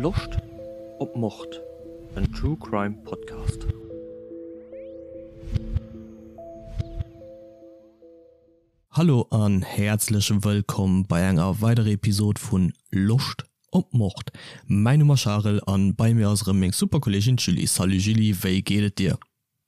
Loscht op Mord? En True Crime Podcast. Hallo an häerzlech wëllkomm bei enger weiderer Episode vun Loscht op Mord. Mäin Numm ass Charel an bei mir ass erëm meng super Kolleegin d'Julie. Salut Julie, wéi geet et dir?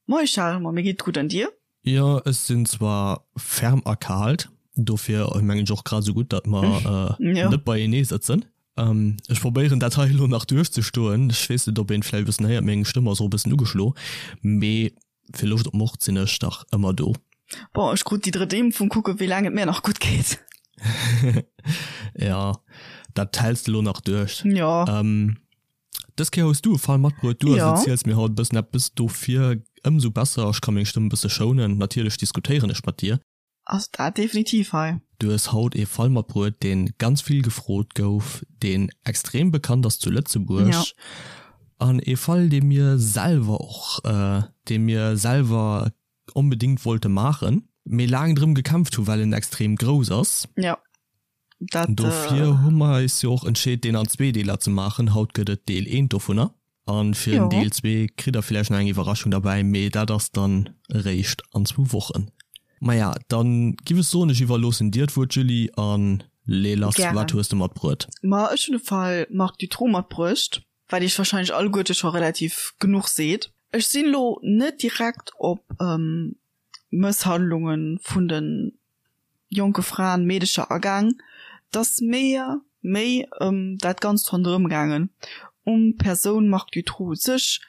Moie Charel, ma mir geet gutt an dir? Jo, ech sinn zwar ferm erkaalt, dofir mengen ech och grad esou gutt, datt mer net beienee sëtzen. Ech probéieren dat hei elo nach duerchzestoen. Ech weess net, ob een vläicht e bëssen héiert, meng Stëmm ass och e bëssen ugeschlo, mee fir Loscht op Mord sinn ech dach ëmmer do. Bon, ech krut déi drëtt Impfung, kucke wéi laang et mir nach gutt geet. Jo, dat häls de elo nach duerch. Jo. Dës Kéier hues du e Fall matbruet, du also erziels mir haut e bëssen eppes, dofir ëmsou besser, ech ka meng Stëmm e bësse schounen, natierlech diskutéieren ech mat dir. Ass dat definitiv hei. Du hues haut ee Fall matbruet, dee ganz vill gefrot gouf, deen extrem bekannt ass zu Lëtzebuerg an ee Fall, dee mir selwer och, dee mir selwer onbedéngt wollte maachen, mee laang drëm gekämpft hu well en extrem grouss ass. Jo, dat. Dofir hu mer eis jo och entscheet, deen an zwee Deeler ze maachen. Haut gëtt et Deel eent dovunner. An fir den Deel zwee kritt der villäicht nach eng Iwwerraschung derbäi, mee dat ass dann eréischt an zwou Wochen. Maja, dann giff ech soen, ech iwwerloossen dir d'Wuert, Julie, an lee lass, wat hues de matbruet? Ma ech hunn de Fall Marc Dutroux matbruecht, wat iech wahrscheinlech alleguerte scho relativ genuch seet. Ech sinn elo net direkt op Mësshandlunge vun de jonke Fraen, Meedecher agaang, 't ass mir méi ëm dat Ganzt ronderëm gaangen, um d'Persoun Marc Dutroux u sech,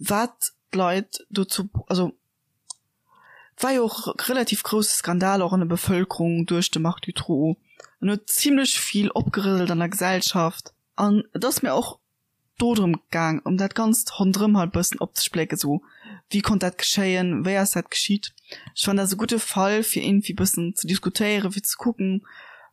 wat d'Leit dozou, also 't war jo och relativ grousse Skandal och an der Bevëlkerung duerch de Marc Dutroux, en huet zimlech vill opgerëselt an der Gesellschaft an et ass mir och do drëm gaang ëm dat ganzt ronderëm halt bëssen opzesplécken, sou wéi konnt dat geschéien, wéi ass dat geschitt. Ech fannen dat ass e gudde Fall fir iergendwéi bëssen ze diskutéieren, fir ze kucken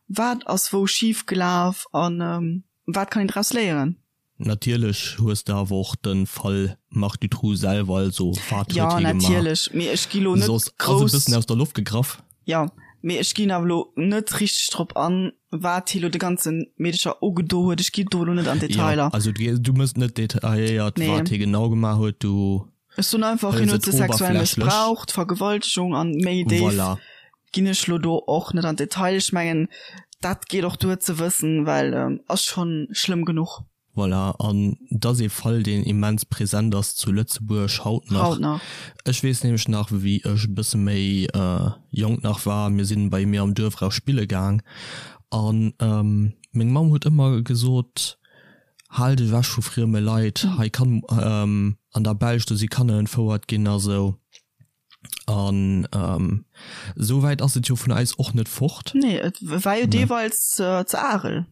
wat ass wou schif gelaf an wat kann een draus léieren. Natierlech hues de awer och de Fall Marc Dutroux selwer, also wat huet Jo hie gemaach, natierlech, mee ech gi lo net soss ass e grouss. bëssen aus der Loft gegraff. Jo, mee ech ginn awer lo net richteg drop an, wat hie lo de ganze Meedecher ugedo huet. Ech ginn do lo net an Detailer. Jo, also du mëss net detailléiert, Nee. wat hie genau gemaach huet, du Ech soen einfach, hien hëls huet et se sexuell oberflächlech. mëssbraucht, Vergewaltegung an méi déif Voilà. ginn ech lo do och net an Detail. Ech mengen, dat geet och duer ze wëssen, well ass schonn schlëmm genuch. Voilà, an et ass ee Fall, deen immens present ass zu Lëtzebuerg haut nach. Haut nach. Ech weess nämlech nach, wéi ech e bësse méi jonk nach war, mir sinn bei mir am Duerf eraus spille gaang an meng Mamm huet ëmmer gesot, Hal dech ewech vu frieme Leit, hei kann an der Belsch, do si Kanner entfouert ginn a sou. An esou wäit ass et jo vun eis och net fort. Nee, et war jo deeweils ze Arel.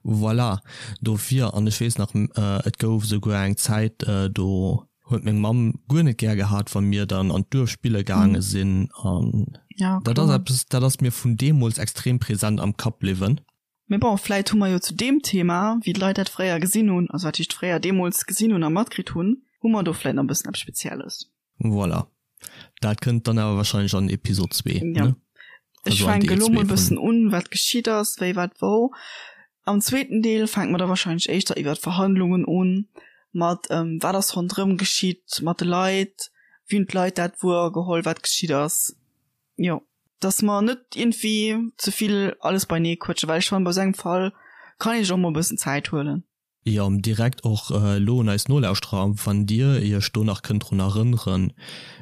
Voilà, dofir. An ech weess nach, et gouf esouguer eng Zäit, do huet meng Mamm guer net gär gehat, wa mir dann an d'Duerf spille gaange sinn. An dat ass eppes, dat ass mir vun deemools extrem present am Kapp bliwwen. Mee bon, vläit hu mer jo zu deem Thema, wéi d'Leit dat fréier gesinn hunn, also wat heescht fréier, deemools gesinn hunn a matkritt hunn, hu mer do vläit nach e bëssen eppes Spezielles. Voilà. Dat kënnt dann awer wahrscheinlech an Episod 2, Ja. ne? Ech Also an fänke Deel lo 2 mol vun. bëssen un, wat geschitt ass, wéi, wat, wou. Am zweeten Deel fänke mer da wahrscheinlech éischter iwwer d'Verhandlungen un, mat wat ass ronderëm geschitt mat de Leit, wéi hunn d'Leit dat wuergeholl, wat geschitt ass. Jo, dass mer net iergendwéi ze vill alles beinee quëtschen, well ech fannen, bei esou engem Fall kann ee sech och mol e bëssen Zäit huelen. Jo, direkt och elo un eis Nolauschterer, wann dir iech do nach kënnt drun erënneren,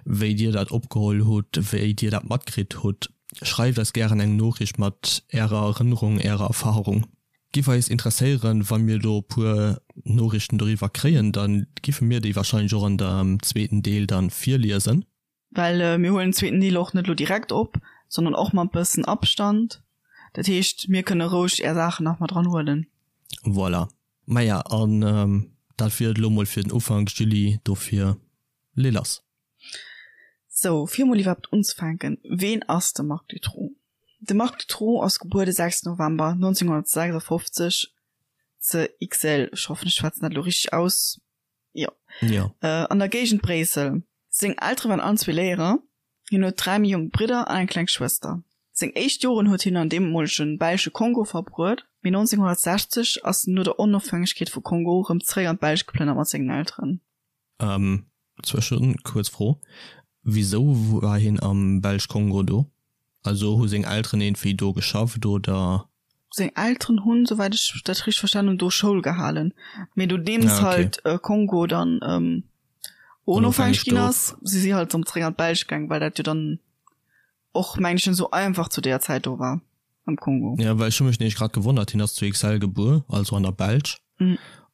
wéi dir dat opgeholl hutt, wéi dir dat matkritt hutt, schreift eis gären eng Noriicht mat ärer Erënnerung, ärer Erfahrung. Giff eis interesséieren, wa mir do e puer Noriichten doriwwer kréien, da giffe mir déi wahrscheinlech och an dem zweeten Deel dann virliesen. Well mir huelen den zweeten Deel och net elo direkt op, sondern och mat bëssen Abstand. Dat heescht, mir kënne roueg är Saachen nach mat dran huelen. Voilà. Maja, an dat wier et elo mol fir den Ufank, Julie. Dofir lee lass. Sou, fir mol iwwerhaapt unzefänken, Ween ass de Marc Dutroux? De Marc Dutroux ass gebuer de 6 November 1956 ze Ixelles, ech hoffen, ech schwätzen dat elo richteg aus, Jo. Jo. An der Géigend Bréissel. Seng Eltere waren allen zwee Léierer. Hien huet 3 méi jonk Bridder an eng kleng Schwëster. Seng éischt Joren huet hien an deemolege belsche Kongo verbruet, mee 1960 ass en no der Onofhängegkeet vu Kongo rëm zeréck an d'Belsch geplënnert mat sengen Elteren. Zwëschen, kuerz Fro, Wisou war hien am Belsch-Kongo do? Also hu seng Elteren iergendwéi do geschafft oder? Seng Elteren hunn, souwäit ech dat richteg verstanen hunn, do Schoul gehalen. Mee nodeems halt Kongo dann onofhängeg ginn ass, si si halt erëm zeréck an d'Belsch gaang, well dat jo dann och, meng ech, net esou einfach zu deeër Zäit do war am Kongo. Jo, well ech hu mech nämlech grad gewonnert, hien ass zu Ixelles gebuer, also an der Belsch,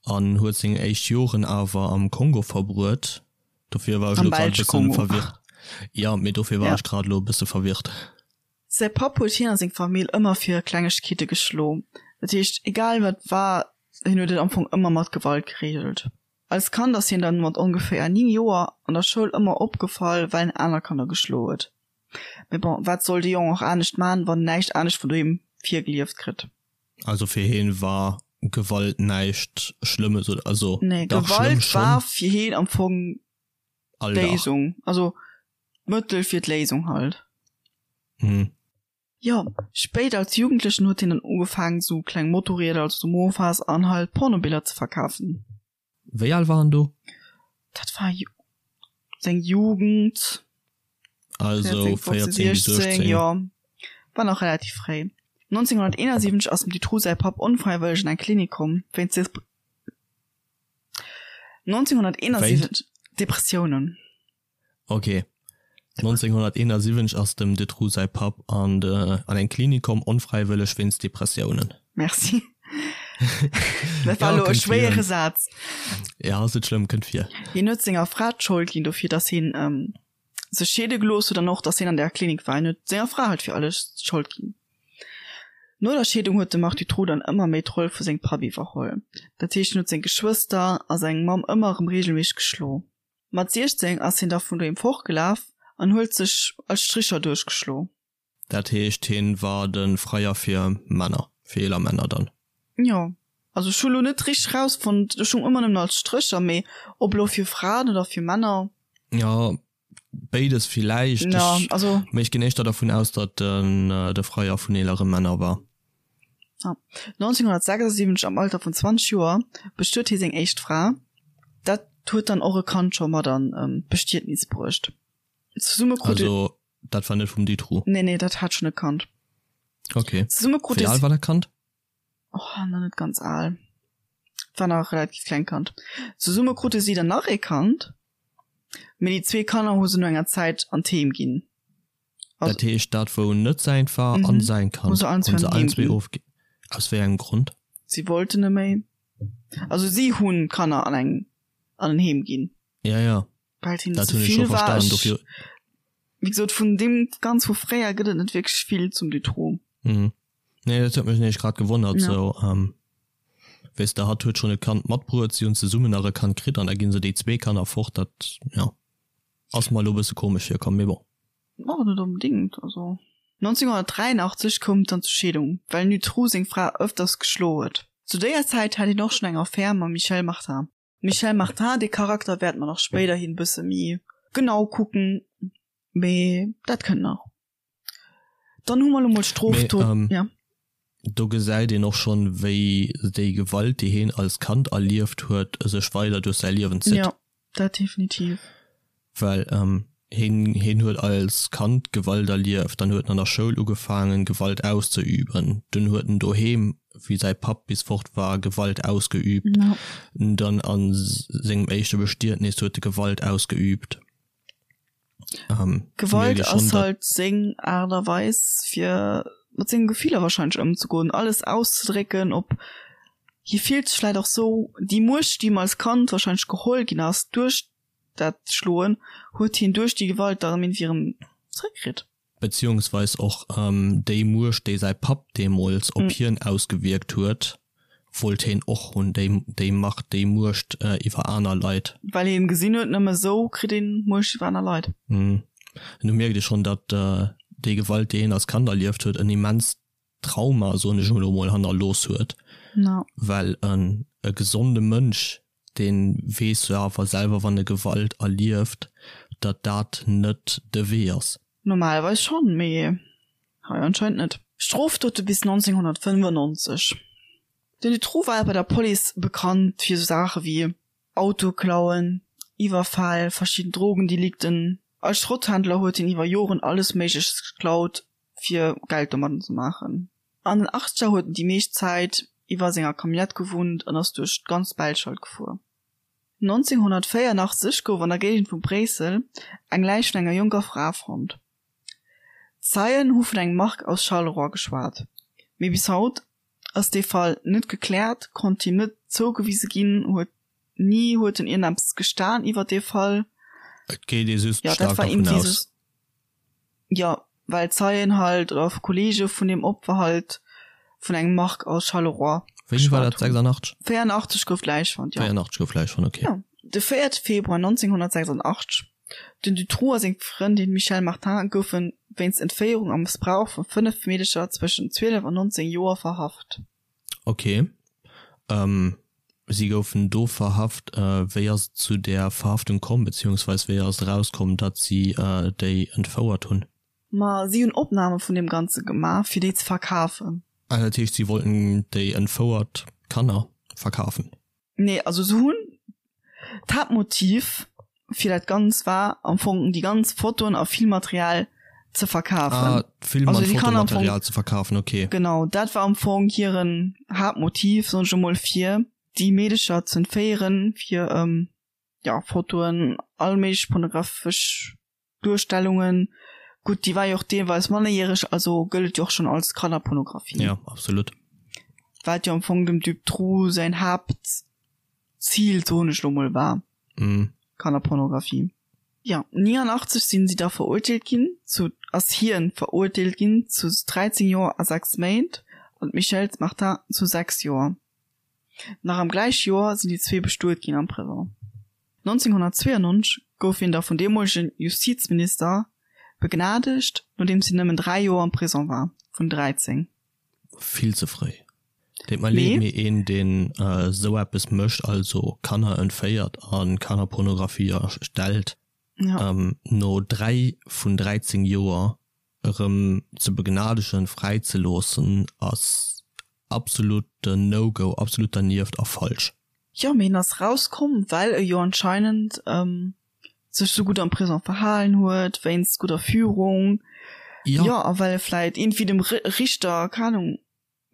an huet seng éischt Joren awer am Kongo verbruet. Dofir war ech elo grad e bëssen verwirrt. Jo, mee dofir war ech grad elo e bësse verwirrt. Säi Papp huet hien a seng Famill ëmmer fir Klengegkeete geschlo. Dat heescht, egal wat war, hien huet et am Fong ëmmer mat Gewalt gereegelt. Als Kand ass hien dann mat ongeféier 9 Joer an der Schoul ëmmer opgefall, well en aner Kanner geschlo huet. Mee bon, wat soll de Jong och anescht man, wann en näischt anescht vun doheem virgelieft kritt? Also fir hien war Gewalt näischt Schlëmmes oder also Nee, dach schlëmm Gewalt war schonn. fir hien am Fong Alldag. d'Léisung, also d'Mëttel fir d'Léisung halt. Mhm. Jo, spéit als Jugendlechen huet hien dann ugefaangen sou kleng Motorrieder, also sou Mofas an halt Pornobiller ze verkafen. Wéi al war en do? Dat war seng Jugend. Also 14 bis 16. Jo, war nach relativ fréi. 1971 ass dem Dutroux säi Papp onfräiwëlleg an eng Klinik komm, wéinst 1971 Depressiounen. Ok. 1971 ass dem Dutroux säi Papp an de an eng Klinik komm, onfräiwëlleg wéinst Depressiounen. Merci. Dat war elo e schwéiere Saz. Ja, ass net schlëmm, kënnt vir. Hien huet senger Fra d'Schold ginn dofir, datt hien sech scheede gelooss huet an och, datt hien an där Klinik war. Hien huet senger Fra halt fir alles d'Schold ginn. No der Scheedung huet de Marc Dutroux dann ëmmer méi d'Roll vu sengem Papp iwwerholl. Dat heescht, hien huet seng Geschwëster a seng Mamm ëmmer erëm reegelméisseg geschlo. Mat 16 ass hien da vun doheem fortgelaf an huet sech als Stricher duerchgeschlo. Dat heescht hien war de Freier fir Männer, fir eeler Männer dann? Jo, also ech hu lo net richteg rausfonnt, ech hu ëmmer nëmmen als Strécher, mee ob lo fir Fraen oder fir Männer. Jo, béides villäicht, mee ech ginn éischter dervun aus, datt en de Freier vun eelere Männer war. 1976, am Alter vun 20 Joer, bestuet hie seng éischt Fra. Dat huet dann och e Kand scho mat an d'Bestietnis bruecht. Zesumme krute. Also dat war net vum Dutroux? Nee, nee, dat hat schonn e Kand. Ok. Zesumme krute. Wéi al war dat Kand? Oh, nach net ganz al. War nach e relativ klengt Kand. Zesumme krute si dann nach ee Kand, mee déi zwee Kanner hu se no enger Zäit an d'Heem ginn. Dat heescht dat wou net säint war an säin Kand hunn se allen zwee ofginn. Aus wéi engem Grond? Si wollten net méi. Also si hunn d'Kanner an eng an en Heem ginn. Ja ja, Well et hinnen ze vill war. Ech, wéi gesot, vun deem ganz vu fréier gëtt et net wierklech vill zum Dutroux. Mhm. Nee, dat huet mech nämlech grad gewonnert sou. Weess de, hatt huet schonn e Kand matbruet, si hunn zesummen nach e Kand kritt an da ginn se déi zwee Kanner fort. Dat, jo. Ass mer elo bësse komesch virkomm, mee bon. Och net onbedingt, also. 1983 koum et dann zur Scheedung, well den Dutroux seng Fra ëfters geschlo huet. Zu déier Zäit hat hien och schonn eng Affär mam Michelle Martin. D'Michelle Martin, dee Charakter wäerte mer nach spéiderhin bësse méi genau kucken, mee dat kënnt nach. Dann hu mer lo mol d'Strofdot, ja. Do gesäit een och schonn, wéi déi Gewalt, déi heen als Kand erlieft huet, sech weider duerch säi Liewen zitt. Jo, dat definitiv. Well heen, heen huet als Kand Gewalt erlieft, dann huet en an der Schoul ugefaangen, Gewalt auszeüben, dunn huet en doheem, wéi säi Papp bis fort war, Gewalt ausgeübt, dann a sengem éischte Bestietnis huet e Gewalt ausgeübt. Ähm, Gewalt ass halt seng Aart a Weis fir mat sengen Gefiller wahrscheinlech ëmzegoen, alles auszedrécken, op hie fillt sech vläit och sou, déi Muecht déi him als Kand wahrscheinlech geholl ginn ass duerch dat Schloen, huet hien duerch déi Gewalt da erëm iergendwéi erëm zréckkritt. Beziehungsweis och déi Muecht, déi säi Papp deemools op hien ausgewierkt huet, wollt heen och hunn, déi, déi Macht, déi Muecht iwwer aner Leit. Well hien gesinn huet, nëmme sou kritt een Muecht iwwer aner Leit. An do mierkt ee schonn, datt déi Gewalt, déi hien als Kand erlieft huet, en immenst Trauma, soen ech elo mol, hannerlooss huet. Well e gesonde Mënsch, dee weess jo awer selwer, wann e Gewalt erlieft, datt dat net de Wee ass. Normalerweis schonn, mee. Hei anscheinend net. Strofdote bis 1995. Den Dutroux war bei der Police bekannt fir sou Saache wéi Autoklauen, Iwwerfäll, verschidden Drogendelikten. Als Schrotthändler huet hien iwwer Joren alles Méigleches geklaut, fir Geld domadden ze maachen. An den Achtzeger huet en déi meescht Zäit iwwer senger Camionnette gewunnt an ass duerch d'ganz Belsch halt gefuer. 1984 gouf an der Géigend vu Bréissel eng Läich vun enger jonker Fra fonnt. Zeien hu vun engem Marc aus Charleroi geschwat, mee bis haut ass dee Fall net gekläert, konnt him net zougewise ginn, huet ni huet en iergendeppes gestan iwwer dee Fall. Et geet ee just staark dervun aus. Jo, well Zeien halt oder Kollege vun deem Opfer halt vun engem Marc aus Charleroi Wéini war dat? 86? 84 gouf d'Läich fonnt, jo. 84 gouf d'Läich fonnt, okay. Jo, de 4 Februar 1986. Den Dutroux a seng Frëndin Michèle Martin goufe wéinst Entféierung a Mëssbrauch vu 5 Meedecher zwëschen 12 an 19 Joer verhaft. Ok. Si goufen do verhaft. Wéi ass et zu där Verhaftung komm, beziehungsweis wéi ass et erauskomm, datt si déi entfouert hunn? Ma si hunn Opname vun deem Ganze gemaach, fir déi ze verkafen. Ah, dat heescht, si wollten déi entfouert Kanner verkafen? Nee, also se hunn, d'Haaptmotiv fir dat Ganzt war am Fong déi ganz Fotoen a Filmmaterial ze verkafen. Ah, Film an Fotomaterial ze verkafen, okay. Genau, dat war am Fong hiren Haaptmotiv, soen ech emol, fir déi Meedecher ze entféieren, fir, ja, Fotoen, all méiglech pornographesch Duerstellungen, gutt déi war jo och deelweis mannerjäreg, also gëllt et jo och schonn als Kannerpornografie. Jo, absolut. Wat jo am Fong dem Dutroux säin Haaptzil, soen ech lo mol, war. Mm. Kannerpornografie. Jo, 89 sinn si da verurteelt ginn zu, ass hien verurteelt ginn zu 13 Joer a 6 Méint an d'Michèle Martin zu 6 Joer. Nach am gläiche Joer sinn déi zwee bestuet ginn am Prisong. 1992 gouf hien da vun deemolegen Justizminister begnadegt, nodeems hien nëmmen 3 Joer am Prisong war, vun 13. Vill ze fréi. Deet mer leed, mee een deen esou eppes mécht, also Kanner entféiert a Kannerpornografie erstellt, no 3 vun 13 Joer erëm ze begnadegen, fräi ze loossen, ass absoluten No-Go, absolut dernieft a falsch. Jo, mee en ass rauskomm, well e jo anscheinend sech sou gutt am Prisong verhalen huet, wéinst gudder Führung, jo, a well e vläit iergendwéi dem Richter, keng Ahnung,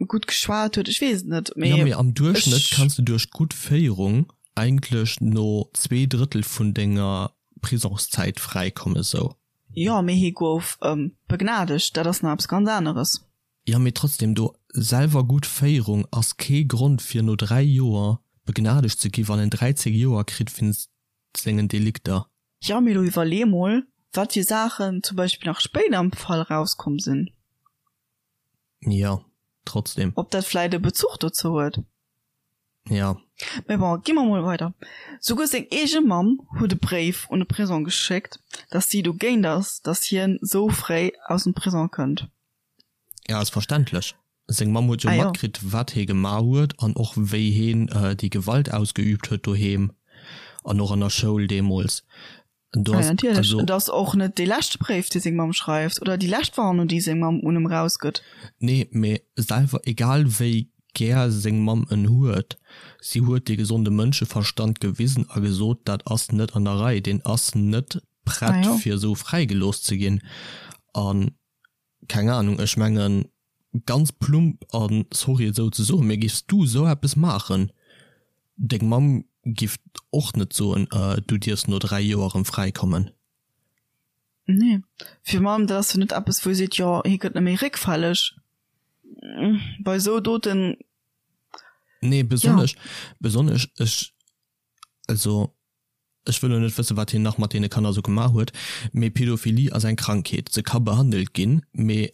gutt geschwat huet, ech weess et net, mee. Jo, mee am Duerchschnëtt kanns de duerch gutt Féierung eigentlech no zweedrëttel vun denger Prisongszäit fräikommen, sou. Jo, mee hie gouf begnadegt, dat ass nach eppes ganz aneres. Jo, mee trotzdem, do selwer gutt Féierung ass kee Grond fir no 3 Joer begnadegt ze gi wann en 13 Joer kritt wéinst sengen Delikter. Jo, mee lo iwwerlee mol, wat fir Saachen zum Beispill nach spéider am Fall rauskomm sinn. Jo, trotzdem. Ob dat vläit e Bezuch dozou huet? Jo. Mee bon, gi mer mol weider. Souguer seng eege Mamm huet e Bréif un de Prisong geschéckt, dass si dogéint ass, dass hien sou fréi aus dem Prisong kënnt. Ja, ass verständlech. Seng Mamm huet jo matkritt, wat hee gemaach huet an och wéi heen déi Gewalt ausgeüübt huet doheem an och an der Schoul deemools. Do ass, natierlech. Also, et ass och net dee leschte Bréif, dee seng Mamm schreift, oder déi lescht Warnung, déi seng Mamm un em erausgëtt. Nee, mee selwer, egal wéi gär seng Mamm en huet, si huet dee gesonde Mënscheverstand gewisen a gesot, dat ass net an der Rei, deen ass net prett, fir esou fräigelooss ze ginn. An Keng Ahnung, ech mengen ganz plump an sorry et esou ze soen, mee giffs du esou eppes maachen, deng Mamm giff och net soen du dierfs no 3 Joer erëm fräi kommen. Nee, virun allem dat ass jo net eppes wou ee seet, jo hie gëtt net méi réckfälleg bei esou Doten. Nee, besonnesch, besonnesch ech, also Ech wëll lo net wëssen, wat hien nach mat deene Kanner sou gemaach huet, mee Pädophilie ass eng Krankheet, se ka behandelt ginn, mee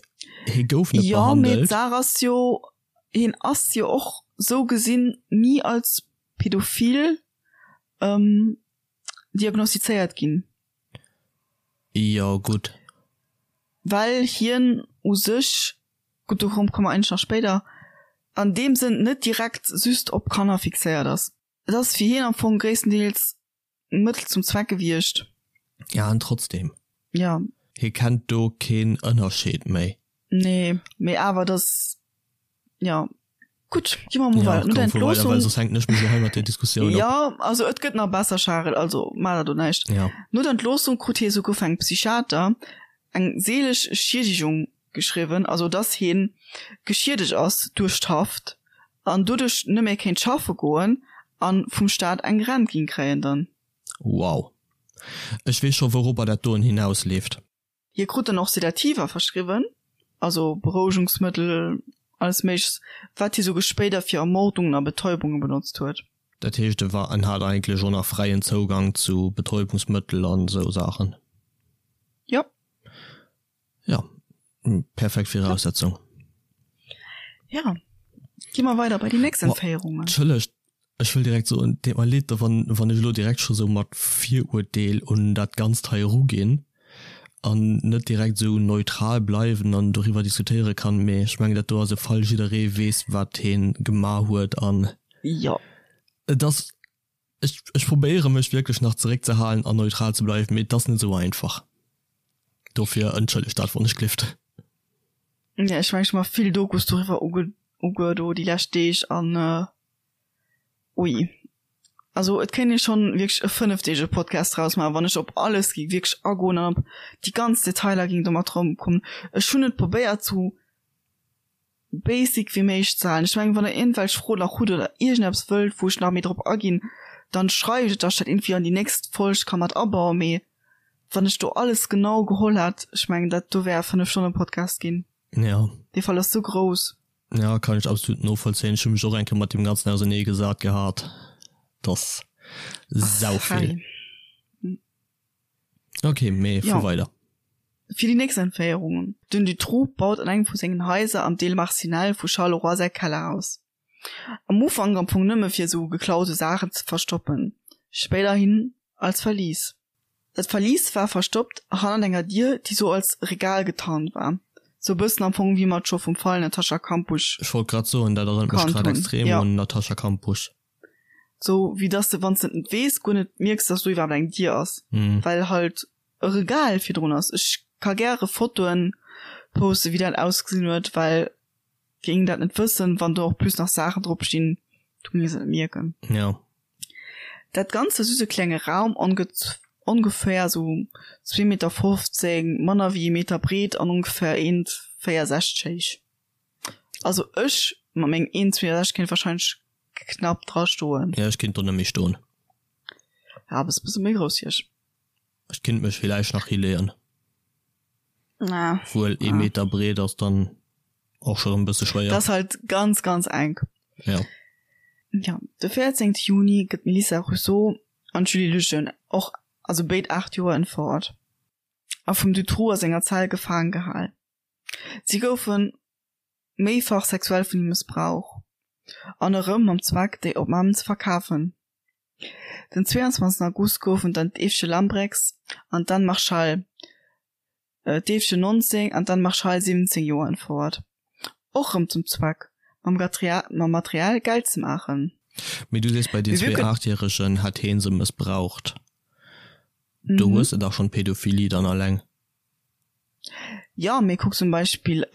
hie gouf net Jo, mee behandelt. d'Saach ass jo, hien ass jo och sou gesinn ni als pädophil diagnostizéiert ginn. Jo, gutt. Well hien u sech, gutt, do komme mer eigentlech nach spéider, an deem Sënn net direkt just op Kanner fixéiert ass. Et ass fir hien am Fong gréisstendeels Mëttel zum Zweck gewiescht. Ja, an trotzdem. Ja. Hie kennt do keen Ënnerscheed méi. Nee, mee awer dass, jo. Gutt, gi mer mol Ja, weider. No der komm, fuer weider, Entloossung. well soss hänken ech mech elo hei mat där Diskussioun op. Jo, also et gëtt nach besser, Charel, also maach der do näischt. Ja. No der Entloossung krut hie souguer vun engem Psychiater eng seelesch Schiedegung geschriwwen, also dass hien geschiedegt ass duerch d'Haft an doduerch net méi kéint schaffe goen an vum Staat eng Rent ging kréien dann. Wow. Ech weess scho wouropper dat doen hinausleeft. Hie krut dann och Sedativa verschriwwen, also Berouegungsmëttel, alles méiglechs, wat hie souguer spéider fir Ermordungen a Betäubunge benotzt huet. Dat heescht e war, en hat eigentlech och nach fräien Zougang zu Betäubungsmëttel an esou Saachen? Jo. Jo, perfekt Viraussetzung. Jo, gi mer weider bei déi nächst Entféierungen. Entschëllegt, ech wëll direkt soen, deet mer leed, wann, wann ech elo direkt scho sou mat Viruerteel un dat Ganzt hei eruginn an net direkt esou neutral bleiwen an doriwwer diskutéiere kann, mee ech mengen, dat do ass e Fall, jidderee weess, wat hee gemaach huet an Jo. et ass, ech, ech probéiere mech wierklech nach zeréckzehalen an neutral ze bleiwen, mee et ass net esou einfach. Dofir entschëllegt dat, wann ech gelift. Ja, ech mengen, ech hu mer vill Dokus doriwwer uge, uge do déi lescht Deeg an Ui. Also et kéint ee schonn wierklech e fënnefdeege Podcast draus maachen, wann ech op alles géing wierklech agoen an op déi ganz Detailer géing do mat erëmkommen. Ech hunn et probéiert sou basic wéi méiglech ze halen. Ech mengen, wann der iergendwelch Froen nach hutt oder iergendeppes wëllt, wou ech nach méi drop aginn, dann schreift et, dass ech dat iergendwéi an déi nächst Folg ka mat abauen. Mee wann ech do alles genau geholl hätt, ech mengen dat do wär e Fënnef-Stonnen-Podcast ginn. Ja. Dee Fall ass sou grouss. Ja, kann ech absolut novollzéien. Ech hu mech och eng Kéier mat deem Ganzen ausernee gesat gehat. Dass sau vill. Ok, mee fuer weider. Fir déi nächst Entféierungen. Den Dutroux baut an engem vu sengen Haiser am Deel Marcinelle vu Charleroi säi Kellerhaus. Am Ufank am Fong nëmme fir esou geklaute Saachen ze verstoppen, spéiderhin als Verlies. Dat Verlies war verstoppt hannert enger Dier, déi sou als Regal getarnt war, sou e bëssen am Fong wéi mer et scho vum Fall Natascha Kampusch Ech wollt grad soen, dat erënnert mech kannt grad hunn. extrem Jo. un Natascha Kampusch. Sou wéi dass de, wann s de et net weess, guer net mierks, dass do iwwerhaapt eng Dier ass, well halt e Regal virdrun ass. Ech ka gäre Fotoen posten, wéi dat ausgesinn huet, well géing dat net wëssen, wann do och plus nach Saachen drop stinn, du géings et net mierken. Jo. Dat Ganzt war just e klenge Raum, ongeféier sou zwee Meter 15, manner wéi ee Meter breet an ongeféier 1,64 héich. Also ech mat mengem 1,64 kéint wahrscheinlech knapp dra stoen. Jo, ech kéint do net méi stoen. Ja, bass e bësse méi grouss wéi ech. Ech kinnt mech villäicht nach hileeën. Na. Wuel ee Meter breet ass dann och scho rëm bësse schwéier. Dat ass halt ganz, ganz enk. Ja. Ja, de 14 Juni gëtt d'Melissa Rousseau an d'Julie Lejeune, och also béid 8 Joer, entfouert a vum Dutroux a senger Zell gefaange gehal. Si goufe méifach sexuell vun him mëssbrauch an erëm mam Zweck, déi Opnamen ze verkafen. Den 22 August goufen dann d'Eefche Lambrechts an d'Anne Marchal, d'Eefchen 19 an d'Anne Marchal 17 Joer entfouert, och rëm zum Zweck, mam Material Geld ze maachen. Mee du sees, bei den zwee Aachtjäregen hätt heen se mëssbraucht. Do hues de dach schonn d'Pädophilie dann alleng. Jo, mee kuck zum Beispill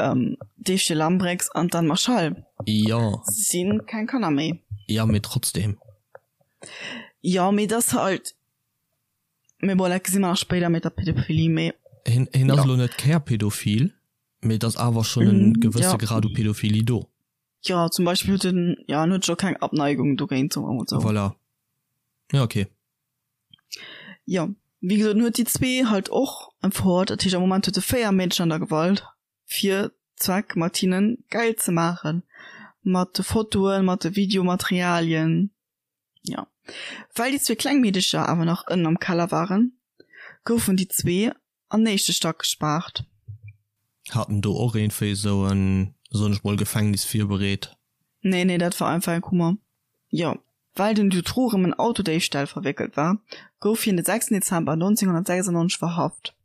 d'Eefche Lambrechts an d'Anne Marchal. Jo. Si sinn keng Kanner méi. Jo, mee trotzdem. Jo, mee et ass halt, mee bon, dat gesi mer nach spéider mat der Pädophilie, mee. Hien, hien ass elo net Kärpädophil, mee et ass awer schonn en gewësse Grad u Pädophilie do. Jo, zum Beispill huet en, jo, en huet scho keng Abneigung dogéint, soe mer emol sou. Voilà. Jo, okay. Jo, wéi gesot, en huet déi zwee halt och empfort. Dat heescht, am Moment huet e 4 Meedchen an der Gewalt, fir Zweck mat hinnen Geld ze maachen. Mat de Fotoen, mat de Videomaterialien. Jo. Well déi zwee kleng Meedecher awer nach ënnen am Keller waren, goufen déi zwee an éischte Stack gespaart. Hat en do och iergendwéi esou en, soen ech mol, Gefängnis virbereet? Nee, nee, dat war einfach eng Kummer. Jo, well den Dutroux erëm en Autodéifstall verwéckelt war, gouf hien de 6 Dezember 1996 verhaft.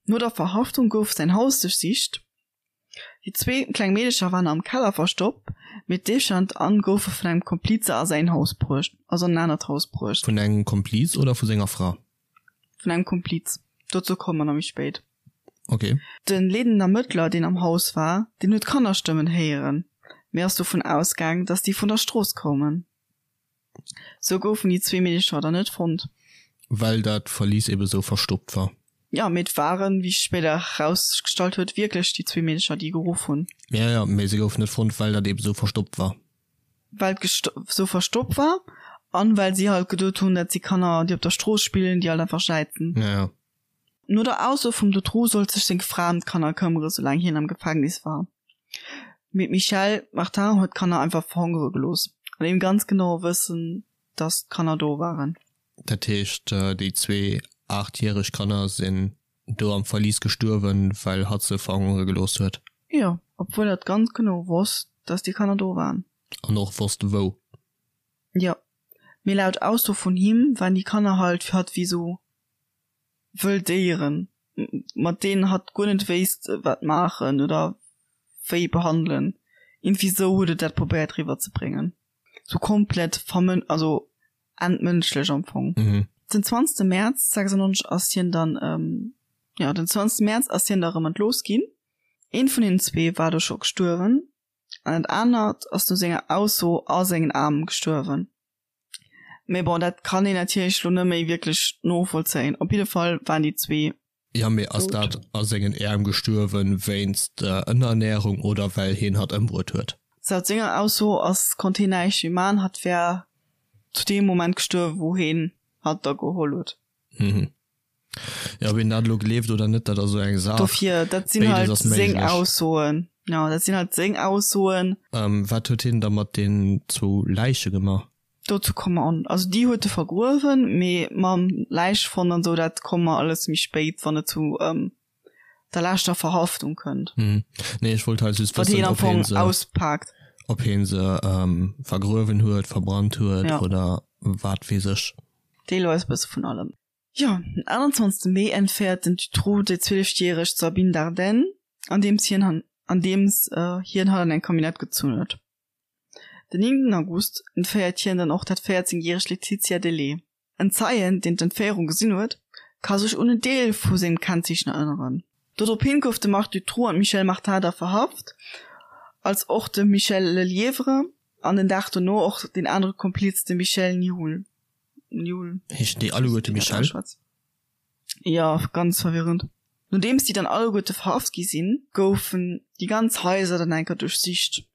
No der Verhaftung gouf säin Haus duerchsicht. Déi zwee kleng Meedecher waren am Keller verstoppt, mee d'Eefchen an d'Anne goufe vun engem Komplize a säin Haus bruecht, also an en anert Haus bruecht. Vun engem Kompliz oder vu senger Fra? Vun engem Kompliz. Dozou komme mer nach méi spéit. Ok. De leedenden Ermëttler, deen am Haus war, deen huet Kannerstëmmen héieren, mee ass dovun ausgaang, dass déi vun der Strooss koumen. Sou goufen déi zwee Meedecher dann net fonnt. Well dat Verlies ebe sou verstoppt war. Jo, mee et waren, wéi sech spéider erausgestallt huet, wierklech déi zwee Meedecher, déi geruff hunn. Jo, jo, mee se goufen net fonnt, well dat ebe sou verstoppt war. Well et sou verstoppt war an well si halt geduet hunn, dat si Kanner, déi op der Strooss spillen, déi halt einfach jäizen. Jo, jo. No der Ausso vum Dutroux sollt sech seng Fra ëm d'Kanner këmmere soulaang hien am Gefängnis war. Mee d'Michèle Martin huet d'Kanner einfach verhongere gelooss, an deem ganz genaue Wëssen, datt d'Kanner do waren. Dat heescht, déi zwee aachtjäreg Kanner sinn do am Verlis gestuerwen, well hatt se verhongere gelooss huet? Jo, obwuel hatt ganz genau wosst, datt déi Kanner do waren. An och wosst, wou? Jo, mee laut Ausso vun him waren déi Kanner halt fir hatt wéi sou wëll Déieren, mat deenen hatt guer net wéisst wat maachen oder wéi behandelen. Iergendwéi sou huet et dat probéiert riwwer ze bréngen. Sou komplett vermën-, also entmënschlech am Fong. Den 20 Mäerz 96 ass hien dann, jo den 20 Mäerz ass hien da rëm entlooss ginn. Eent vun hinnen zwee war do scho gestuerwen an dat anert ass no senger Ausso a sengen Aarm gestuerwen. Mee bon, dat kann een natierlech lo net méi wierklech novollzéien. Op jidde Fall waren déi zwee Jo, mee ass dout. dat a sengen Äerm gestuerwen wéinst Ënnerernärung oder well hien hatt ëmbruet huet? Laut senger Ausso ass, konnt hien näischt méi man, hatt wär zu deem Moment gestuerwen, wou hien hatt da geholl huet. Mhm. Jo, ob een dat elo gleeft oder net, dat ass esou eng Saach. Dofir, dat sinn Béides halt ass seng méiglech. Aussoen. Jo, dat sinn halt seng Aussoen. Wat huet hien da mat den zwou Läiche gemaach? Dozou komme mer an. Also déi huet e vergruewen, mee mam Läichefond an esou, dat komme mer alles méi spéit, wann et zu der leschter Verhaftung kënnt. Mhm. Nee, ech wollt halt just Wat wëssen, hien am ob hien Fong se, auspaakt. ob hien se vergruewen huet, verbrannt huet Ja. oder wat weess ech. Deelweis e bësse vun allem. Jo, den 21 Mee entféiert den Dutroux déi 12 järeg Sabine Dardenne, andeems hien han andeems hien hatt an eng Camionnette gezunn huet. Den 9 August entféiert hien dann och dat 14 järegt Laetitia Delay. En Zeien, deen d'Entféierung gesinn huet, ka sech un en Deel vu sengem Kennzeechen erënneren. Dorophin gouf de Marc Dutroux an d'Michèle Martin da verhaft, als och de Michel Lelièvre an den Dag dono och deen anere Kompliz, de Michel Nihoul. Nihoul. Heeschen déi alleguerte Michel? Jo, ganz verwirrend. Nodeems déi dann alleguerte verhaft gi sinn, goufen déi ganz Haiser dann eng Kéier duerchsicht.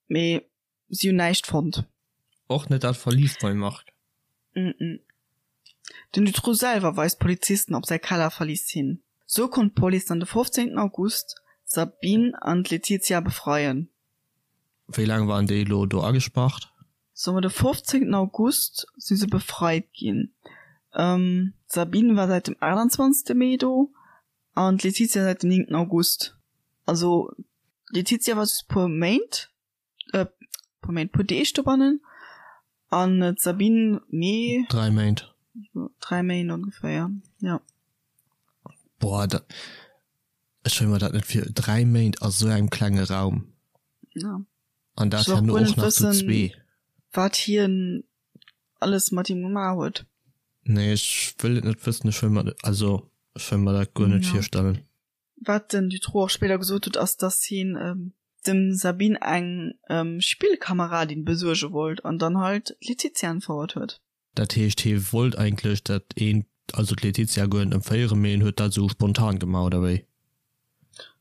Mee si hunn näischt fonnt. Och net dat Verlies beim Marc. Mm. Den Dutroux selwer weist d'Polizisten op säi Kellerverlies hin. Sou konnt d'Police dann de 15 August d'Sabine an d'Laetitia befreien. Wéi laang waren déi elo do agespaart? Soe mer de 15 August si se befreit ginn. D'Sabine war säit dem 28 Mee do An d'Laetitia säit dem 9 August. Also d'Laetitia war just puer Méint, äh, puer Méint, puer Deeg dobannen an d'Sabine mee. Dräi Méint. Dräi Méint ongeféier, ja. Boah, dat, ech wëll mer dat net vir, dräi Méint a sou engem klenge Raum. Ja. An dat herno och nach zu zwee. Wat hien alles mat him gemaach huet. Nee, ech wëll et net wëssen, ech wëll mer, also ech wëll mer dat guer net virstellen. Wat den Dutroux och spéider gesot huet, ass dass hien dem Sabine eng Spillkameradin besuerge wollt an dann halt d'Laetitia entfouert huet. Dat heescht hie wollt eigentlech dat eent, also d'Laetitia guer net entféieren, mee en huet dat esou spontan gemaach, oder wéi?